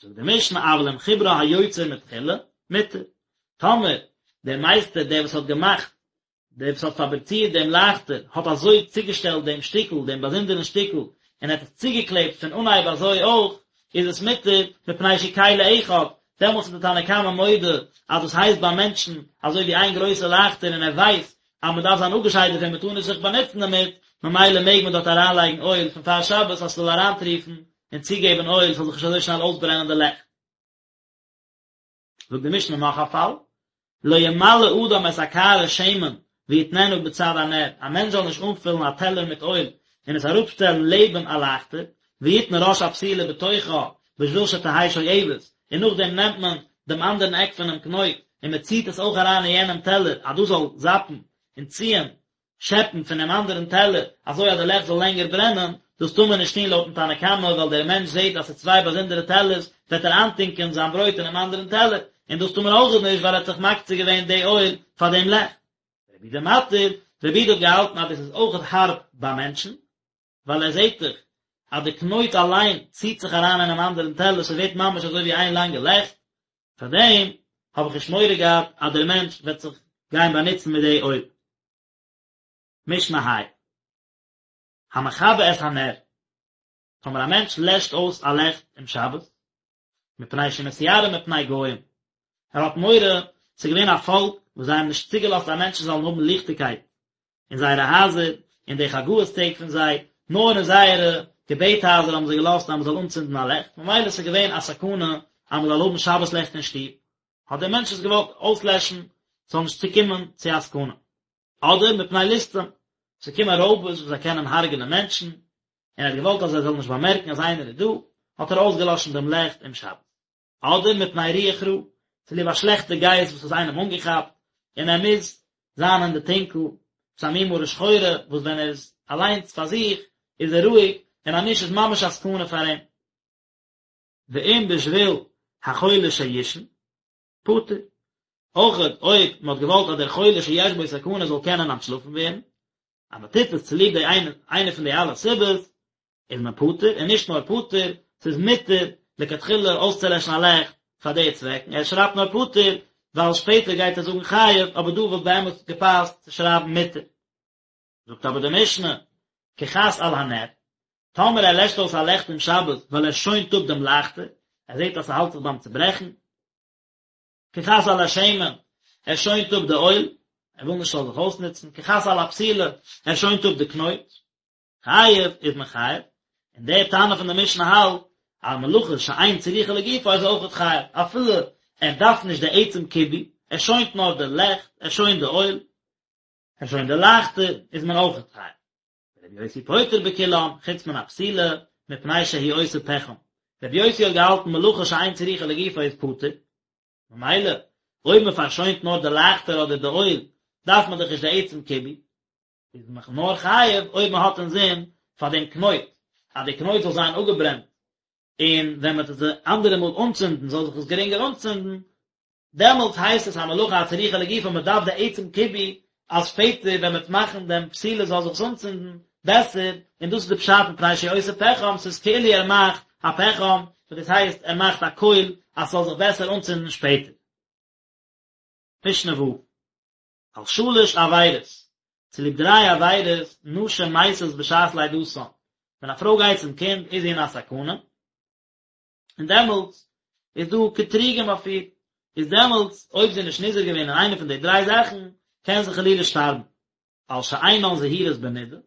זאגט די משנה אבל אם חיברה היוצר מתחילה, מותר. טאמער דער מייסטער דער וואס האט געמאכט, דער וואס האט פאבריצירט דעם לייכטער, האט אזוי צוגעשטעלט דעם שטיקל, דעם באזונדערן שטיקל, און ער האט עס צוגעקלעבט פון אנהייב אזוי אויך, איז עס מותר, מפני שהוא כלי אחד, דעמאלטס איז די תנא קמא מודה אז דאס הייסט ביי מענטשן אזוי ווי איין גרויסע לייכטער און ער ווייסט אז מען דארף זיין אפגעשיידט דערפון מען טאר נישט זיך באנוצן דערמיט, ממילא מעג מען דארט אריינלייגן אויל פון פאר שבת אז ס'זאל אריינטריפן און צוגעבן אויל ס'זאל זיך נישט אזוי שנעל אויסברענען די לעכט. זאגט די משנה נאך א פאל, לא ימלא אדם את הקערה שמן ויתננה בצד הנר, א מענטש זאל נישט אנפילן א טעלער מיט אויל און עס אראפשטעלן לעבן א לייכטער, ויתן ראש הפתילה בתוכה בשביל שתהא שואבת, און נאכדעם נעמט מען דעם אנדערן עק פונעם קנויט און מען ציט עס אויך אריין אין יענעם טעלער אז דאס זאל זאפן און ציען שעפּן פֿון דעם אַנדערן טעלער, אַזוי אַז די לעכט זאָל לענגער ברענען, דאָס טאָר מען נישט טאָן לויטן תנא קמא, ווייל דער מענטש זעט אַז ס'איז צוויי באַזונדערע טעלערס, וועט ער אײַנטונקען זײַן ברויט אינעם אַנדערן טעלער, און דאָס טאָר מען אויך נישט, ווייל ער האָט זיך מקצה געווען די אויל פֿאַר דעם לעכט. רבי יהודה מתיר, רבי יהודה האָט געהאַלטן אַז דאָס איז אויך האַרב בײַ מענטשן, ווייל ער זעט דאך אז די קנויט אליין ציט זיך אריין אינעם אנדערן טעלער, ס'ווערט ממש אזוי ווי איין לאנגע לעכט, פאר דעם האב איך נישט מורא געהאט אז דער מענטש וועט זיך גיין באנוצן מיט די אויל. משנה ה'. המכבה את הנר, טאמער א מענטש לעשט אויס א לעכט אום שבת, מפני שמתיירא מפני גוים, ער האט מורא, ס'איז געווען א פאלק וואס זיי האבן נישט צוגעלאזט אז מענטשן זאלן האבן ליכטיגקייט אין זייערע הייזער, אין די חגאות טעג פון זיי, נאר אין זייערע געבעט הייזער האבן זיי געלאזט אז מען זאל אנצינדן א לעכט, ממילא ס'איז געווען א סכנה אז מען זאל האבן שבת לעכט אין שטוב, האט דער מענטש עס געוואלט אויסלעשן, ס'זאל נישט צוקומען צו א סכנה. אדער מפני ליסטים, ס'קומען רויבערס וואס זיי קענען הרג'נען מענטשן, און ער האט געוואלט אז זיי זאלן נישט באמערקן אז איינער איז דא, האט ער אויסגעלאשן דעם לעכט אום שבת. אדער מפני רוח רעה, צוליב א שלעכטע גייסט וואס האט איינעם אנגעכאפט, און ער מוז זיין אין די טונקל, ס'איז א מין מרה שחורה, וואס ווען ער איז אליינס פאר זיך, איז ער רואיג, און אז נישט איז ממש א סכנה פאר אים. ואם בשביל החולה שיישן, פטור. אויכעט אויב מען האט געוואלט אז דער חולה שיש בו סכנה זאל קענען אנטשלאפן ווערן, אז מען טוט עס צוליב די איינע איינע פון די אלע סיבות, איז מען פטור, און נישט נאר פטור, ס'איז מותר לכתחילה אויסצולעשן א לעכט פאר די צוועקן, ער שרייבט נאר פטור, ווייל שפעטער גייט ער זאגן חייב, אבער דא וואלט באמת געפאסט צו שרייבן מותר. זאגט אבער די משנה, כחס על הנר, טאמער ער לעשט אויס א לעכט אום שבת ווייל ער שוינט אפ דעם לייכטער, ער זעט אז ס'האלט זיך ביים צוברעכן, כחס על השמן, ער שוינט אפ די אויל, ער וויל נישט ס'זאל זיך אויסנוצן, כחס על הפתילה, ער שוינט אפ די קנויט, חייב איז מען חייב, און דער תנא פון די משנה האלט אז מלאכה שאין צריכה לגופה איז אויכעט חייב, אפילו ער דארף נישט די עצם כיבוי, ער שוינט נאר די לעכט, ער שוינט די אויל, ער שוינט די לייכטער, איז מען אויכעט חייב. רבי יוסי פוטר בכולם, חוץ מן הפתילה, מפני שהוא עושה פחם. רבי יוסי האט געהאלטן מלאכה שאין צריכה לגופה איז פטור. ממילא, אויב מען פארשוינט נאר די לייכטער אדער די אויל, דארף מען דאך נישט די עצם כיבוי. איז מען נאר חייב אויב מען האט אינזין פאר דעם קנויט, אז די קנויט זאל זיין אפגעברענט, און ווען מען וועט עס די אנדערע מאל אנצינדן זאל זיך עס גרינגער אנצינדן, דעמאלטס הייסט עס א מלאכה הצריכה לגופה, מען דארף די עצם כיבוי אז שפעטער ווען מען וועט מאכן דעם פתילה זאל זיך עס אנצינדן בעסער, און דאס איז די פשט מפני שהוא עושה פחם, ס'איז כאילו ער מאכט א פחם, וואס דאס הייסט ער מאכט א קויל אז ס'זאל זיך בעסער אנצינדן שפעטער. משנה ו'. על שלש עבירות, צוליב דריי עבירות, נשים מתות בשעת לידתן, ווען א פרוי גייט צום קינד איז זי אין א סכנה, און דעמאלטס איז דא קטרוגים אויף איר, איז דעמאלטס אויב זי איז נישט נזהר געווען אין איינע פון די דריי זאכן, קען זי חלילה שטארבן. על שאינן זהירות בנידה,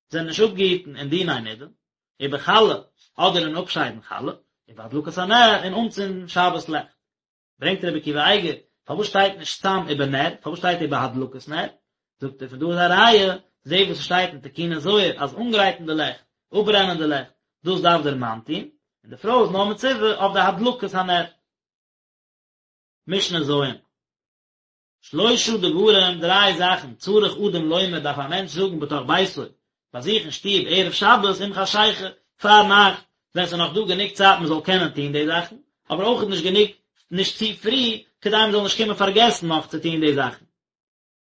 זענען נישט אפגעהיטן אין דיני נידה, ובחלה, אדער אין אפשיידן חלה, ובהדלקת הנר, אין אנצינדן שבת לעכט. ברענגט רבי עקיבא אייגער, פארוואס שטייט נישט סתם ובנר, פארוואס שטייט ובהדלקת נר? זאגט ער פון דא איז א ראיה, זע וואס עס שטייט אין תיקוני זוהר אז אנגרייטן די לעכט, אפברענען די לעכט, דאס דארף דער מאן טון, און די פרוי איז נאר מצווה אויף די הדלקת הנר. משנה ז'. שלושה דברים, דריי זאכן, צריך אדם לומר דארף א מענטש זאגן בתוך ביתו, ביי זיך אין שטוב ערב שבת עם חשיכה, פאר נאכט, ווען ס'איז נאך דא גענוג צייט מען זאל קענען טון די זאכן, אבער אויך נישט גענוג נישט צו פרי, כדי מען זאל נישט קומען פארגעסן נאך צו טון די זאכן.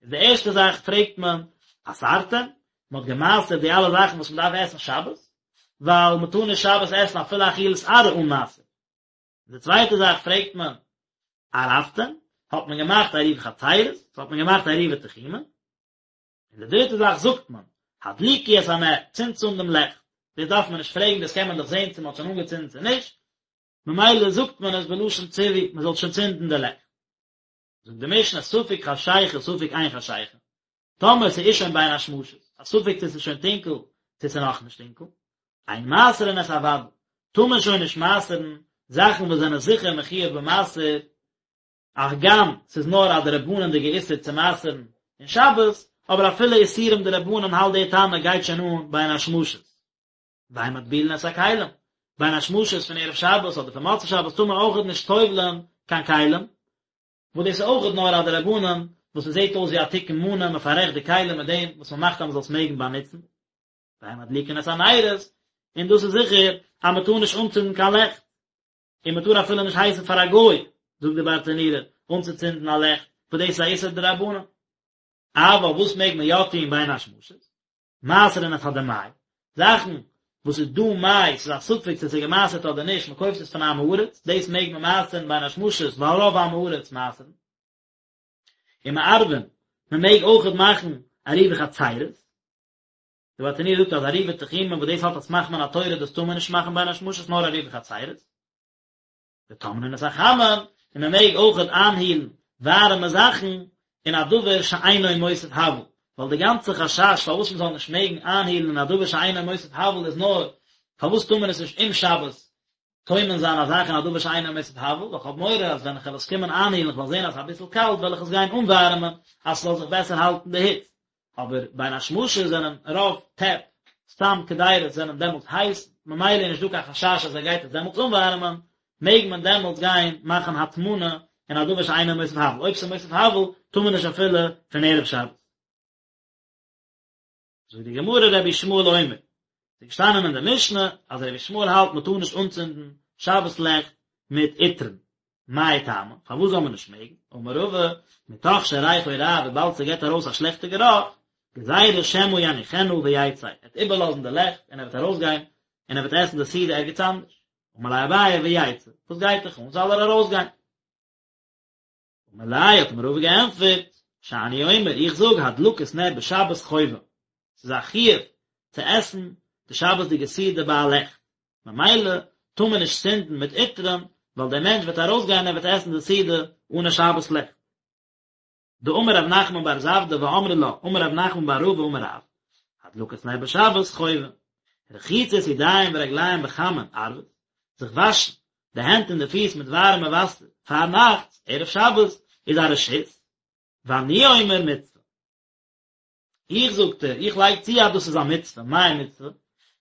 איז די ערשטע זאך פרעגט מען, עשרתם? מען האט גע'מעשר'ט די אלע זאכן וואס מען דארף עסן שבת? ווייל מען טאר נישט שבת עסן אפילו אכילת עראי אן מעשר. די צווייטע זאך פרעגט מען, ערבתם? האט מען געמאכט עירובי חצירות? האט מען געמאכט עירובי תחומין? און די דריטע זאך זאגט מען, הדליקו את הנר, צינדטס אן דעם לעכט. דאס דארף מען נישט פרעגן, דאס קען מען דאך זען צו מען האט שוין אנגעצינדן צו נישט, ממילא זאגט מען עס בלשון ציווי, מען זאל שוין צינדן די לעכט. זאגט די משנה, ספק חשיכה ספק אין חשיכה, טאמער ס'איז שוין בין השמשות, א ספק צו ס'איז שוין טונקל צו ס'איז נאכנישט טונקל, אין מעשרין את הוודאי, טאר מען שוין נישט מעשר'ן זאכן וואס זענען זיכער מחויב במעשר, הגם ס'איז נאר א דרבנן'דיגע איסור צו מעשר'ן אין שבת, אבער אפילו איסורים דרבנן האלט די תנא גייט שוין אן בין השמשות. ואין מטבילין את הכלים, בין השמשות פון ערב שבת אדער פון מוצאי שבת טאר מען אויכעט נישט טובל'ען קיין כלים, וואס דאס איז אויכעט נאר א דרבנן וואס עס זעט אויס ווי א תיקון מנא, מען פאררעכט די כלים מיט דעם וואס מען מאכט אז מען זאל עס מעגן באנוצן. ואין מדליקין את הנרות, און דאס איז זיכער אז מען טאר נישט אנצינדן קיין לעכט, און מען טאר אפילו נישט הייסן פאר א גוי, זאגט די ברטנורא, אנצוצינדן א לעכט, וואס דאס איז א איסור דרבנן. אבל וואס מעג מען יא טון בין השמשות? מעשרין את הדמאי, זאכן וואס איז דא מאי, ס'איז א ספק צו ס'איז געמעשרט אדער נישט, מען קויפט עס פון עם הארץ, דאס מעג מען מעשר'ן בין השמשות, ווייל רוב עם הארץ מעשר'ן. ומערבין, מען מעג אויכעט מאכן עירובי חצירות. די ברטנורא זאגט אז עירובי תחומין וואס דאס האט א סמך מן התורה דאס טאר מען נישט מאכן בין השמשות נאר עירובי חצירות. וטומנין את החמין, און מען מעג אויכעט איינהילן ווארעמע זאכן אין א דבר שאינו מוסיף הבל, ווייל די גאנצע חשש פארוואס מען זאל נישט מעגן איינהילן אין א דבר שאינו מוסיף הבל איז נאר פארוואס טאר מען עס נישט אום שבת טומן זיין א זאך אין א דבר שאינו מוסיף הבל, ווייל כ'האב מורא אז ווען כ'וועל עס קומען איינהילן כ'וועל זען אז ס'איז אביסל קאלט וועל איך עס גיין אנווארעמען אז ס'זאל זיך בעסער האלטן די היץ, אבער בין השמשות זענען רוב טעפ סתם קדירות זענען דעמאלטס הייס, ממילא איז נישט דא קיין חשש אז ער גייט עס דעמאלטס אנווארעמען, מעג מען דעמאלטס גיין מאכן הטמנה אין א דבר שאינו מוסיף הבל, אויב ס'איז מוסיף הבל טאר מען נישט אפילו פון ערב שבת. זאגט די גמרא רבי ישמעאל אומר, ס'איז געשטאנען אין די משנה אז רבי ישמעאל האלט מ'טאר נישט אנצינדן שבת לעכט מיט עטרן, מאי טעמא, פארוואס זאל מען נישט מעגן? אמר רבא, מתוך שריחו רע, וויבאלד ס'געט ארויס א שלעכטע גערוך, גזירה שמא יניחנה ויצא, ער וועט איבערלאזן די לעכט און ער וועט ארויסגיין און ער וועט עסן די סעודה ערגעץ אנדערש. אמר ליה אביי ויצא, וואס גייט דיך אן, זאל ער ארויסגיין. אמר ליה האט אים רבא געענטפערט, שאני אומר, איך זאג הדלקת נר בשבת חובה, ס'איז א חיוב צו עסן די שבת'דיגע סעודה ביי א לעכט, ממילא טאר מען נישט צינדן מיט עטרן, ווייל דער מענטש וועט ארויסגיין און ער וועט עסן די סעודה אן א שבת לעכט. דאמר רב נחמן בר זבדא ואמרי לה אמר רב נחמן בר רבא אמר רב, הדלקת נר בשבת חובה, רחיצת ידיים ורגליים בחמין ערבית, זיך וואשן די הענט און די פיס מיט ווארעמע וואסער פארנאכטס, ערב שבת, איז א רשות, ואני אומר מצוה. איך זאגט ער, איך לייג צו אז דאס איז א מצוה, מאי מצוה?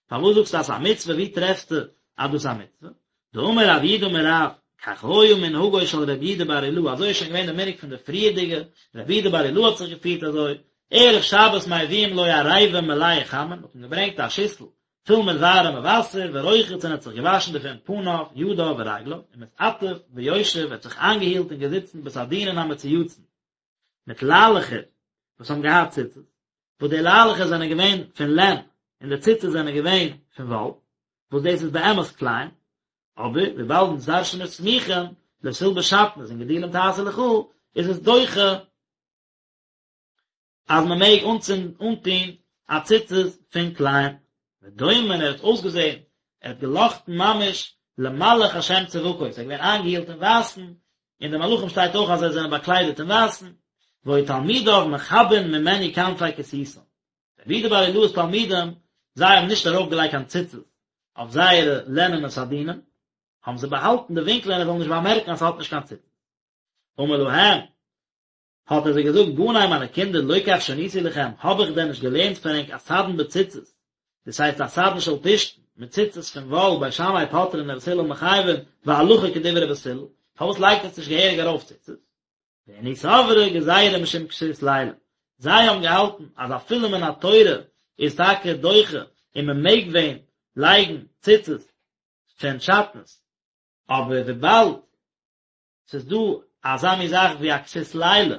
פארוואס זאגסטו אז ס'איז א מצוה, ווי טרעפסטו אז דאס איז א מצוה? דאמר רב יהודה אמר רב, כך היה מנהגו של רבי יהודה בר אילעאי, אזוי איז שוין געווען די מנהג פון די פריערדיגע, רבי יהודה בר אילעאי האט זיך געפירט אזוי, ערב שבת מביאים לו עריבה מלאה חמין, מ'האט אים געברענגט א שיסל פול מיט ווארעמע וואסער, ורוחץ און ער האט זיך געוואשן דערפון פניו, ידיו ורגליו, ומתעטף ויושב, ער האט זיך איינגעהילט און געזיצן בסדינין המצויצין. מיט ליילעכער וואס האבן געהאט ציצית, וואס די ליילעכער זענען געווען פון לען און די ציצית זענען געווען פון וואל, וואס דאס איז באמת כלאים, אבער וויבאלד אונז דרש'ן מיר סמוכין, לא תלבש שעטנז און גדילים תעשה לך, איז עס דוחה אז מען מעג אנצינדן אנטון א ציצית פון כלאים. ודומה ער האט אויסגעזען, ער האט געלאכטן ממש למלאך השם צבקות, ער איז געווען איינגעהילט אין ווייסן, און די מלאכים שטייט אויך אז זיי זענען באקליידעט אין ווייסן, והיו תלמידיו מכבין ממנו כנפי כסותם. רבי יהודה בר אילעאי'ס תלמידים, זיי האבן נישט ארויפגעלייגט קיין ציצית אויף זייערע לענענע סדינען, האבן זיי באהאלטן די ווינקלען ער זאל נישט באמערקן אז ס'האט נישט קיין ציצית. אמר להם, האט ער זיי געזאגט, בני מיינע קינדער, לא כך שניתי לכם, האב איך דען נישט געלערנט פאר ענק א סדין בציצית, דאס הייסט א סדין של פשתן, מיט ציצית פון וואל, בית שמאי פוטרין ובית הלל מחייבין, והלכה כדברי בית הלל, פארוואס לייגט עטס נישט געהעריג ארויף ציצית? ואינהו סברי גזירה משום כסות לילה, זיי האבן געהאלטן אז אפילו מן התורה איז טאקע דוחה און מען מעג ווען לייגן ציצית פון שעטנז, אבער וויבאלד ס'איז דא אזא מין זאך ווי א כסות לילה,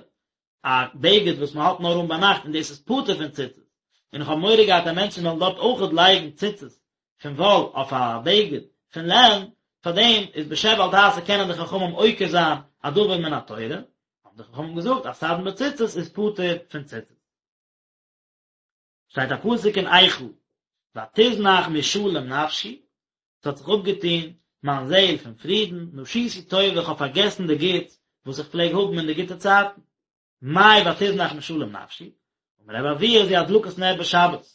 א בגד וואס מען האט נאר אן ביינאכט און דאס איז פטור פון ציצית, און איך האב מורא געהאט אז מענטשן וועלן דארט אויכעט לייגן ציצית פון וואל אויף א בגד פון לען, פארדעם איז בשב ואל תעשה קענען די חכמים עוקר זיין א דבר מן התורה, האבן די חכמים געזאגט אז סדין בציצית איז פטור פון ציצית. שטייט א פסוק אין איכה, ותזנח משלום נפשי, ס'האט זיך אפגעטון מיין זעהל פון פרידן, נשיתי טובה, איך האב פארגעסן די גוטס וואס איך פלעג האבן אין די גוטע צייטן. מאי ותזנח משלום נפשי? אמר רבי אבהו זו הדלקת נר בשבת.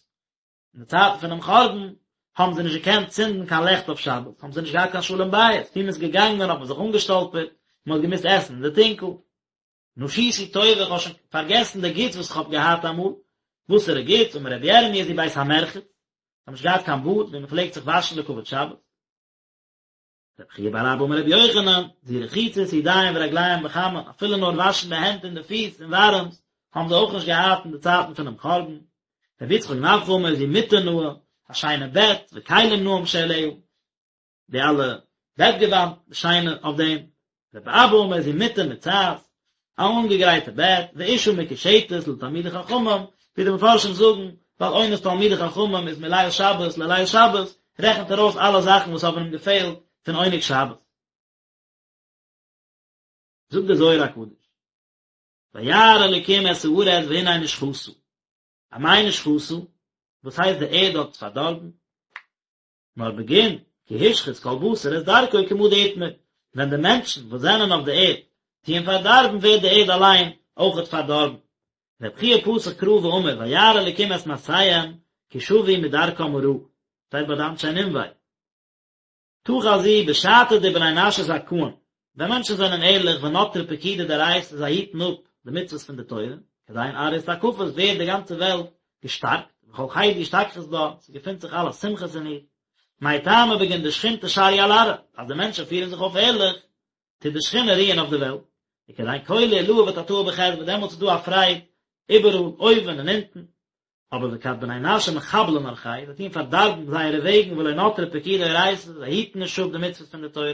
אין די צייטן פונעם חורבן האבן זיי נישט געקענט צינדן קיין לעכט אויף שבת, האבן זיי נישט געהאט קיין שלום בית, ווי מ'איז געגאנגען האט מען זיך אנגעשטאלפערט, מען האט געמוזט עסן אין די טונקל. נשיתי טובה, איך האב שוין פארגעסן די גוטס וואס איך האב געהאט אמאל. וואסערע גוטס? אמר רבי ירמי' זו בית המרחץ, זיי האבן נישט געהאט קיין באד ווי מען פלעגט זיך וואשן לכבוד שבת. רבי חייא בר אבא אמר רבי יוחנן, זו רחיצת ידיים ורגליים בחמין, אפילו נאר וואשן די הענט און די פיס אין ווארעמס, האבן זיי אויך נישט געהאט אין די צייטן פונעם חורבן. רבי יצחק נפחא אמר זו מטה נאה, א שיינע בעט, וכלים נאים שעליה. די אלע בעטגעוואנט שיינע אויף דעם, רבי אבא אמר זו מטה מוצעת, א אנגעגרייטע בעט, ואשה מקושטת לתלמידי חכמים, ווי די מפרשים זאגן, ווייל עונת תלמידי חכמים איז מליל שבת לליל שבת, רעכנט ער אויס אלע זאכן וואס האבן אים געפעלט פון עונג שבת. זאגט דער זוהר הקדוש, וירא אלקים את הארץ והנה נשחתה, אמאי נשחתה? וואס הייסט די ערד האט פארדארבן? נאר בגין כי השחית כל בשר את דרכו כמה דאתמר, ווען די מענטשן וואס זענען אויף די ערד טוען פארדארבן ווערט די ערד אליין אויכעט פארדארבן. רבי חייא פתח קרא ואמר וירא אלקים את מעשיהם כי שבו מדרכם הרעה, שטייט ביי די אנשי נינווה. תא חזי בשעתא דבני נשא זכאין, ווען מענטשן זענען ערליך ונטרי פקודי דאורייתא זיי היטן אפ די מצוות פון די תורה, כדין ארעא אתתקפת ווערט די גאנצע וועלט געשטארקט, וכל חידא אשתכחת בה, ס'געפינט זיך אלע שמחות אין איר. מאי טעמא בגין דשכינתא שריא על ארעא, אז די מענטשן פירן זיך אויף ערליך, טוט די שכינה רוען אויף די וועלט, וכדין כלא עילאה ותתאה בחדוה, דעמאלטס איז דא א פרייד איבעראל, אויבן און אונטן. אבער וכד בני נשא מחבלין ארחייהו, זיי טוען פארדארבן זייערע וועגן ולא נטרי פקודי אורייתא, זיי היטן נישט אפ די מצוות פון די תורה,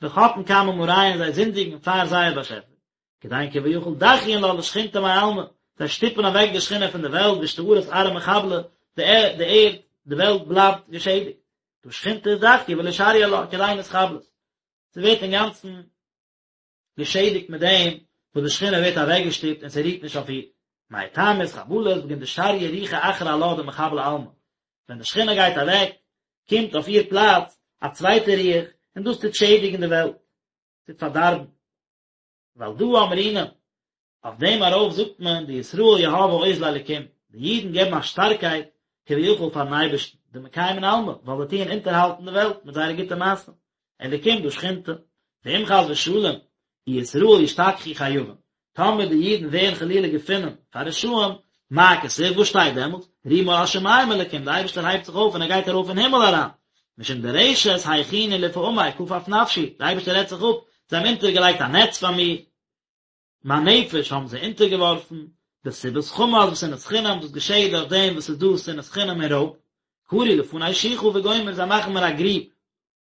וחטאין קמי מאריהון, זיי זינדיגן פאר זייער באשעפער, כדין כביכול דחיין לה לשכינתא מעלמא, זיי שטופן אוועק די שכינה פון די וועלט ואשתארת ארעא מחבלא, די ערד, די וועלט בלייבט געשעדיגט, דהא שכינתא אזדחיא ולא שריא עלה, כדין אתחבלת, ס'ווערט אינגאנצן געשעדיגט מיט דעם. וואס די שכינה ווערט אוועקגעשטופט און ס'רוהט נישט אויף איר. מאי טעמא אתחבלת בגין דשריא רוחא אחרא עלה דמחבלא עלמא, ווען די שכינה גייט אוועק, קומט אויף איר פלאץ א צווייטע רוח און דאס טוט שעדיגן די וועלט, טוט פארדארבן. ועל דא אמרינן, אויף דעם ארויף זאגט מען דישראל יהבי עוז לאלקים, די אידן געבן א שטארקייט כביכול פארן אייבערשטן, דמקיימין עלמא, ווייל זיי טוען אונטערהאלטן די וועלט מיט זייערע גוטע מעשים, אלקים דא שכינתא, ואם חס ושלום אי ישראל ישתכחו חייבין, טאמער די אידן ווערן חלילה געפונען פאר רשעים, מה כתיב, וואס שטייט דעמאלטס, רומה על השמים אלקים, די אייבערשטער הייבט זיך אויף און ער גייט ארויף אין הימל אריין, משום דרשת הכינו לפעמי כפף נפשי, די אייבערשטער רעדט זיך אפ, זיי האבן אונטערגעלייגט א נעץ פאר מיר, מיין נפש האבן זיי אונטערגעווארפן, בסיבת חמס ושנאת חינם, דאס געשעהט דורך דעם וואס ס'איז דא שנאת חינם און רויב, כרו לפני שוחה וגומר, זיי מאכן מיר א גריב,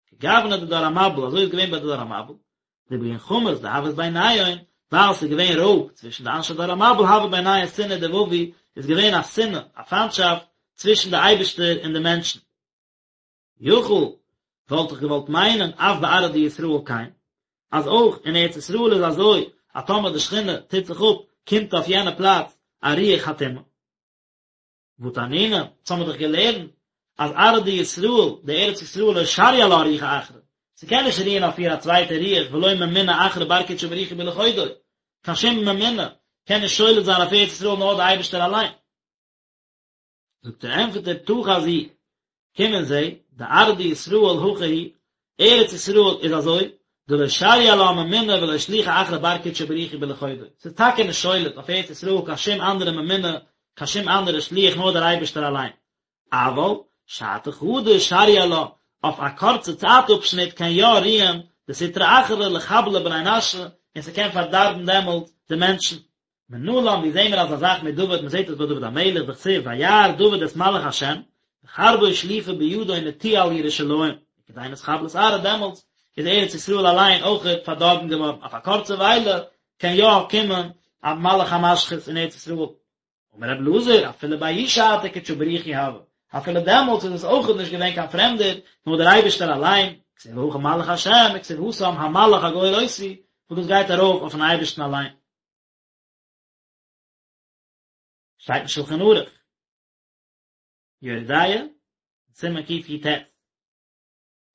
כגוונא דדור המבול, אזוי איז געווען ביי די דור המבול, דבגין חמס דהות ביניהון, ווייל ס'איז געווען רויב צווישן די אנשי דור המבול הוה ביניהון שנאה ודבבו, איז געווען א שנאה, א פיינטשאפט, צווישן די אייבערשטער און די מענטשן. יכול, וואלט איך געוואלט מיינען אף בארעא דישראל כן, אז אויך אין ארץ ישראל איז אזוי, אז טאמער די שכינה טוט זיך אפ, קומט אויף יענע פלאץ א רוח הטומאה. והא תנינן, אונז האמיר דאך געלערנט אז ארעא דישראל, די ארץ ישראל לא שריא עלה רוחא אחרא, ס'קען נישט רוען אויף איר א צווייטע רוח ולא ממונה אחרא בר קודשא בריך הוא בלחודוי, קיין שום ממונה קען נישט שולט זיין אויף ארץ ישראל נאר די אייבערשטער אליין. זאגט ער ענטפערט ער תא חזי, קום און זע, דארעא דישראל הכי היא, ארץ ישראל איז אזוי, דלא שריא עלה ממונה ולא שליחא אחרא בר קודשא בריך הוא בלחודוי, ס'איז טאקע נישט שולט אויף ארץ ישראל קיין שום אנדערע ממונה, קיין שום אנדערע שליח נאר דער אייבערשטער אליין, אבל שעתא חדא שריא עלה, אויף א קורצע צייט אפשניט קען יא רוען די סטרא אחרא לחבלא בני נשא, און ס'קען פארדארבן דעמאלט די מענטשן. מנלן ווי זעהן מיר אזא זאך מדוד מען זעהט עס ביי דוד המלך דכתיב וירא דוד את מלאך השם וחרבו שלופה בידו נטויה על ירושלים וכדין אתחבלת ארעא דעמאלטס איז ארץ ישראל אליין אויכעט פארדארבן געווארן אויף א קורצע וויילע קען יא קומען א מלאך המשחית אין ארץ ישראל אמר רבי אלעזר אפילו בההיא שעתא קודשא בריך הוא הוה אפילו דעמאלטס איז עס אויכעט נישט געווען קיין פרעמדער נאר דער אייבערשטער אליין כתיב הכא מלאך השם וכתיב התם המלאך הגואל אותי וואס דאס גייט ארויף אויפן אייבערשטן אליין. שטייט אין שלחן ערוך, יורה דעה, סימן קי"ט,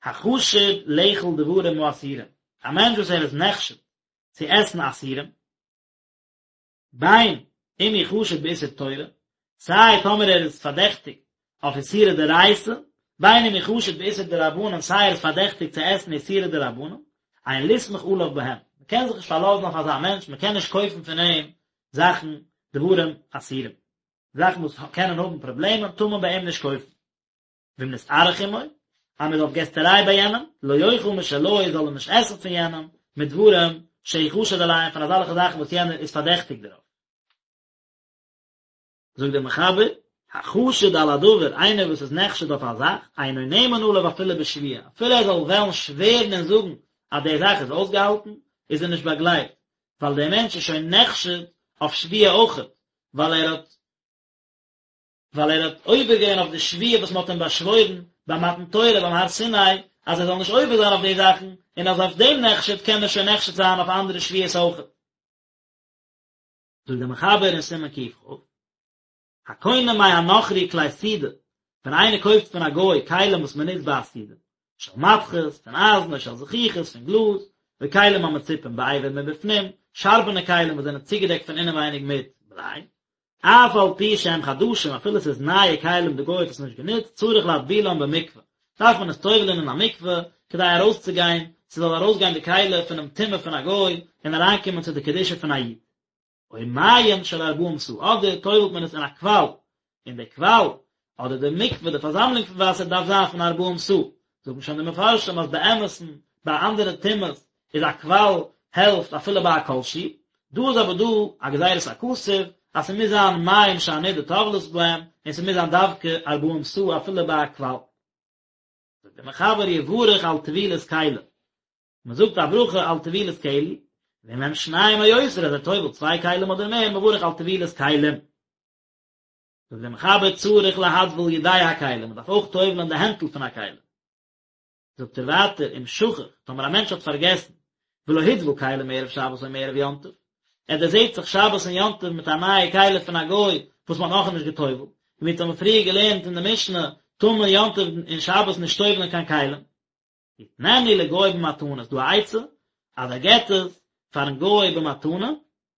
החשוד לאכול דברים האסורים, א מענטש וואס ער איז נחשד צו עסן אסורים, בין אם הוא חשוד באיסור תורה, סיי טאמער ער איז פארדעכטיגט אויף איסורי דאורייתא, בין אם הוא חשוד באיסור דרבנן, סיי ער איז פארדעכטיגט צו עסן איסורי דרבנן, אין לסמוך עליו בהם, מען קען זיך נישט פארלאזן אויף אזא מענטש, מען קען נישט קויפן פון אים זאכן דברים אסורים, זאכן וואס קענען האבן פראבלעמען טאר מען ביי אים נישט קויפן. ואם נתארח עמו, אז מען איז אויף געסטעריי ביי יענעם, לא יאכל משלו, זאל ער נישט עסן פון יענעם, מדברים שהוא חשוד עליהם, פון אזעלכע זאכן וואס יענער איז פארדעכטיגט דערויף. זאגט דער מחבר, החשוד על הדבר, איינער וואס איז נחשד אויף א זאך, אינו נאמן עליו אפילו בשבועה, אפילו ער זאל וועלן שווערן און זאגן אז די זאך איז אויסגעהאלטן, איז ער נישט באגלייבט, ווייל דער מענטש איז שוין נחשד אויף שבועה אויכעט, ווייל ער האט ווייל ער האט עובר געווען אויף די שבועה וואס מען האט אים באשוואוירן ביי מתן תורה ביים הר סיני, אז ער זאל נישט עובר זיין אויף די זאכן, און אז אויף דעם נחשד קען ער שוין נחשד זיין אויף אנדערע שבועות אויכעט. זאגט דער מחבר אין סימן קכ, הקונה מהנכרי כלי סעודה, ווען איינער קויפט פון א גוי כלים וואס מען נוצט ביי א סעודה, של מתכות, פון אייזן, או של זכוכית, פון גלאז, וכלים המצופים באבר מבפנים, שארבענע כלים וואס זענען צוגעדעקט פון אינעווייניג מיט בליי, אף על פי שהם חדשים, אפילו עס איז נייע כלים די גוי האט עס נישט גענוצט, צריך להטבילם במקווה, דארף מען עס טובל'ען אין א מקווה, כדי ארויסצוגיין, ס'זאל ארויסגיין די כלי פונעם טומאה פון א גוי, און אריינקומען צו די קדושה פון א איד. או מעיין של ארבעים סאה, אדער טובל'ט מען עס אין א קוואל, און די קוואל, אדער די מקווה, די פארזאמלונג פון וואסער דארף זיין פון ארבעים סאה. זאגן שוין די מפרשים אז באמת'ן, ביי אנדערע טומאות, איז א קוואל העלפט אפילו ביי א כל שהוא, דא איז אבער דא א גזירת הכתוב אז ס'מוז זיין מים שהנידה טובלת בהם, און ס'מוז זיין דווקא ארבעים סאה אפילו ביי א קוואל. זאגט דער מחבר יברך על טבילת כלי, מ'זאגט א ברכה על טבילת כלי, ואם הם שניים או יותר אז ער טובל'ט צוויי כלים אדער מער מברך על טבילת כלים. זאגט דער מחבר צריך להטביל ידי הכלי, מ'דארף אויך טובל'ען די הענטל פון א כלי. זאגט ער ווייטער אם שכח, טאמער א מענטש האט פארגעסן, ולא הטביל כלים מערב שבת או מערב יום טוב, ער דערזעט זיך שבת און יום טוב מיט א נייע כלי פון א גוי וואס מען האט נאכנישט גע'טובל'ט, און ווי אונז האבן פריער געלערנט אין די משנה, טאר מען יום טוב און שבת נישט טובל'ען קיין כלים. יתננו לגוי במתנה, איז דא א עצה אז ער געט עס פארן גוי במתנה,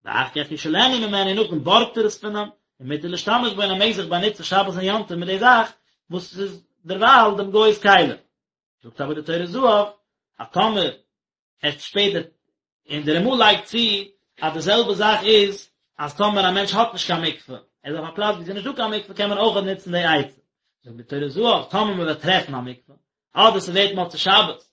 ואחר כך ישאלנו ממנו, נאכדעם בארגט ער עס פון אים, ומותר להשתמש בו און ער מעג זיך באנוצן שבת און יום טוב מיט די זאך וואס איז דערווייל דעם גוי'ס כלי. זאגט אבער די טורי זהב אז טאמער ער שפעטער און דער רמ"א לייגט צו אז די זעלבע זאך איז אז טאמער א מענטש האט נישט קיין מקווה, ער איז אויף א פלאץ ווי עס איז נישט דא קיין מקווה קען מען אויכעט נוצן די עצה. זאגט די טורי זהב טאמער מען וועט טרעפן א מקווה אדער ס'ווערט מוצאי שבת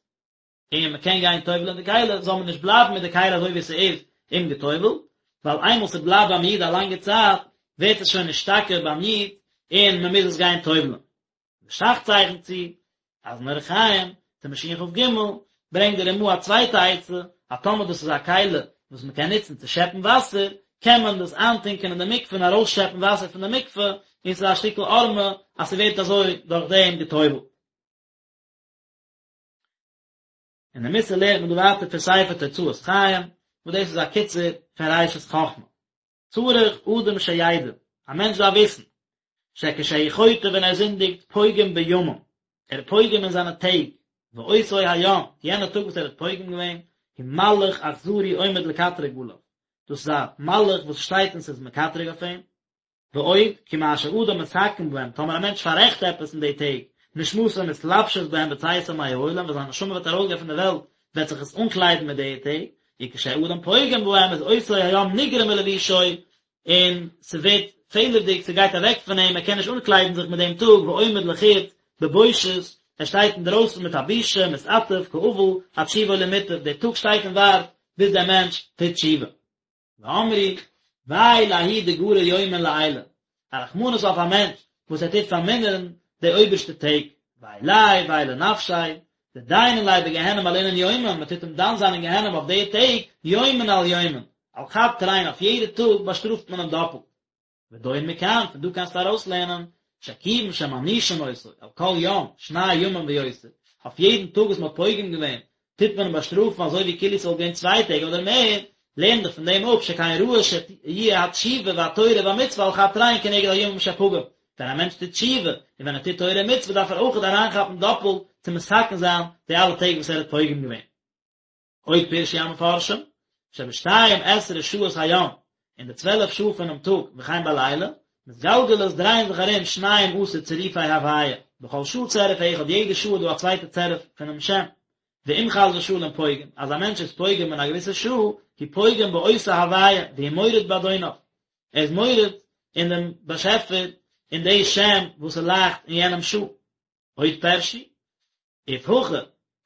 און מען קען גיין טובל'ען די כלי זאל מען נישט בלייבן מיט די כלי אזוי ווי ס'איז אומגעטובל'ט, ווייל איינמאל ס'בלייבט ביים איד א לאנגע צייט ווערט עס שוין נשתקע ביים איד און מען מוז עס גיין טובל'ען. די ש"ך צייכנט צו אז אין אורח חיים, סימן שכ"ג, ברענגט די רמ"א א צווייטע עצה, אז טאמער דאס איז א כלי וואס מען קען נוצן צו שעפן וואסער, קען מען דאס איינטונקען אין די מקווה און ארויסשעפן וואסער פון די מקווה, און ס'איז א שטיקל הערמה אז ס'ווערט אזוי דורך דעם גע'טובל'ט. און די מוסר לערנט מען דא ווייטער פון ספר תוצאות חיים, וואס דאס איז א קיצור פון ראשית חכמה. צריך אדם שידע, א מענטש דארף וויסן, שכשהוא חוטא ווען ער זינדיגט פוגם בימים, ער איז פוגם אין זיינע טעג, ואותו היום, יענע טאג וואס ער האט פוגם געווען, הוא מלאך אכזרי עומד לקטרג עליו, דאס איז א מלאך וואס שטייט און ס'איז מקטרג אויף אים, ועוד, כי מה שאדם מתקן בהם, טאמער א מענטש פאררעכט עפעס אין די טעג, נשמתו מתלבשת בהם בצאתו מהעולם, ווען זיין נשמה וועט ארויסגיין פון די וועלט, וועט זיך עס אנקליידן מיט די טעג, וכשאדם פוגם בהם איז אותו היום נגרע מלבושו, און ס'ווערט פעלערדיג, ס'גייט אוועק פון אים, ער קען נישט אנקליידן זיך מיט דעם טאג, ועומד לחוץ בבושת, ער שטייט אינדרויסן מיט א בושה, מתעטף כאבל, עד שובו למוטב, דער טאג שטייט און ווארט ביז דער מענטש טוט תשובה. ואמרו, וויי לההוא דגרע יומין לעילא, א רחמנות אויף א מענטש וואס ער טוט פארמינערן די אויבערשטע טעג, וויי ליה וויי לנפשיה, דדיינין ליה בגיהנום על אינון יומין, מען טוט אים דן זיין אין גיהנום אויף די טעג, יומין על יומין, על חד תרין אויף יעדע טאג באשטראפט מען אים דאפלט. ודון מכאן, פון דא קענסטו ארויסלערנען, שכיוון שמענישין אותו, על כל יום, שני ימים ויותר, אויף יעדן טאג וואס מען האט פוגם געווען, טוט מען אים באשטראפן אזוי ווי כאילו ס'וואלט געווען צוויי טעג אדער מער, לערן דיך פון דעם אפ שכן ראוי שיהיה התשובה והתורה והמצוה על חד תרין כנגד הימים שפגם, ווען א מענטש טוט תשובה, און ווען ער טוט תורה און מצוה דארף ער אויכעט אריינכאפן דאפלט צו מתקן זיין די אלע טעג וואס ער האט פוגם געווען. עוד פירשו המפרשים, שבשתיים עשרה שעות היום, אין די צוועלף שעה פונעם טאג, וכן בלילה, מתגלגלות דרייען זיך ארום שניים עשר צירופי הוויה, בכל שעה צירוף אחד, יעדע שעה איז דא א צווייטע צירוף פונעם שם, ואם חס ושלום פוגם, אז א מענטש איז פוגם אין א געוויסע שעה, הוא פוגם באותה הוויה, והוא מורד באדוניו, ער איז מורד אין דעם באשעפער, אין די שם וואס ס'לייכט אין יענעם שעה. עוד פירשו, אוף הכי,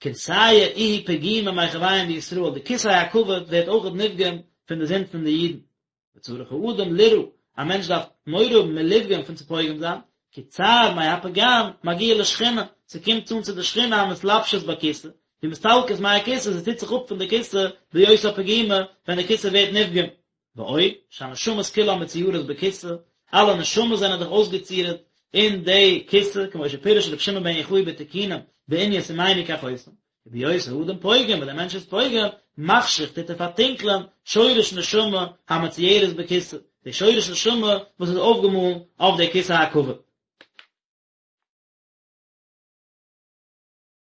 כורסיא איהי פגימא מחויהון דישראל, די כסא הכבוד ווערט אויכעט נפגם פון די זינד פון די אידן. וצריך האדם ליראה, א מענטש דארף מורא האבן מלפגום פון צו פוגם זיין, כי צער מהפגם מגיע לשכינה, ס'קומט אן צו די שכינה המתלבשת בכסא, ומסתלקת מהכסא, ס'טוט זיך אפ פון די כסא בהיותה פגימה, ווען די כסא ווערט נפגם. ועוד, שהנשמות כולן מצוירות בכסא, אלע נשמות זענען דאך אויסגעצירט אין די כסא, כמו שפירש רבי שמעון בן יוחאי בתיקונים בענין שימני כחותם, ובהיות האדם פוגם, ווען דער מענטש איז פוגם, מחשיך טוט ער פארטונקלען שורש נשמה המצוירת בכסא, די שורש נשמה וואס איז אויפגעמאלן אויף די כסא הכבוד.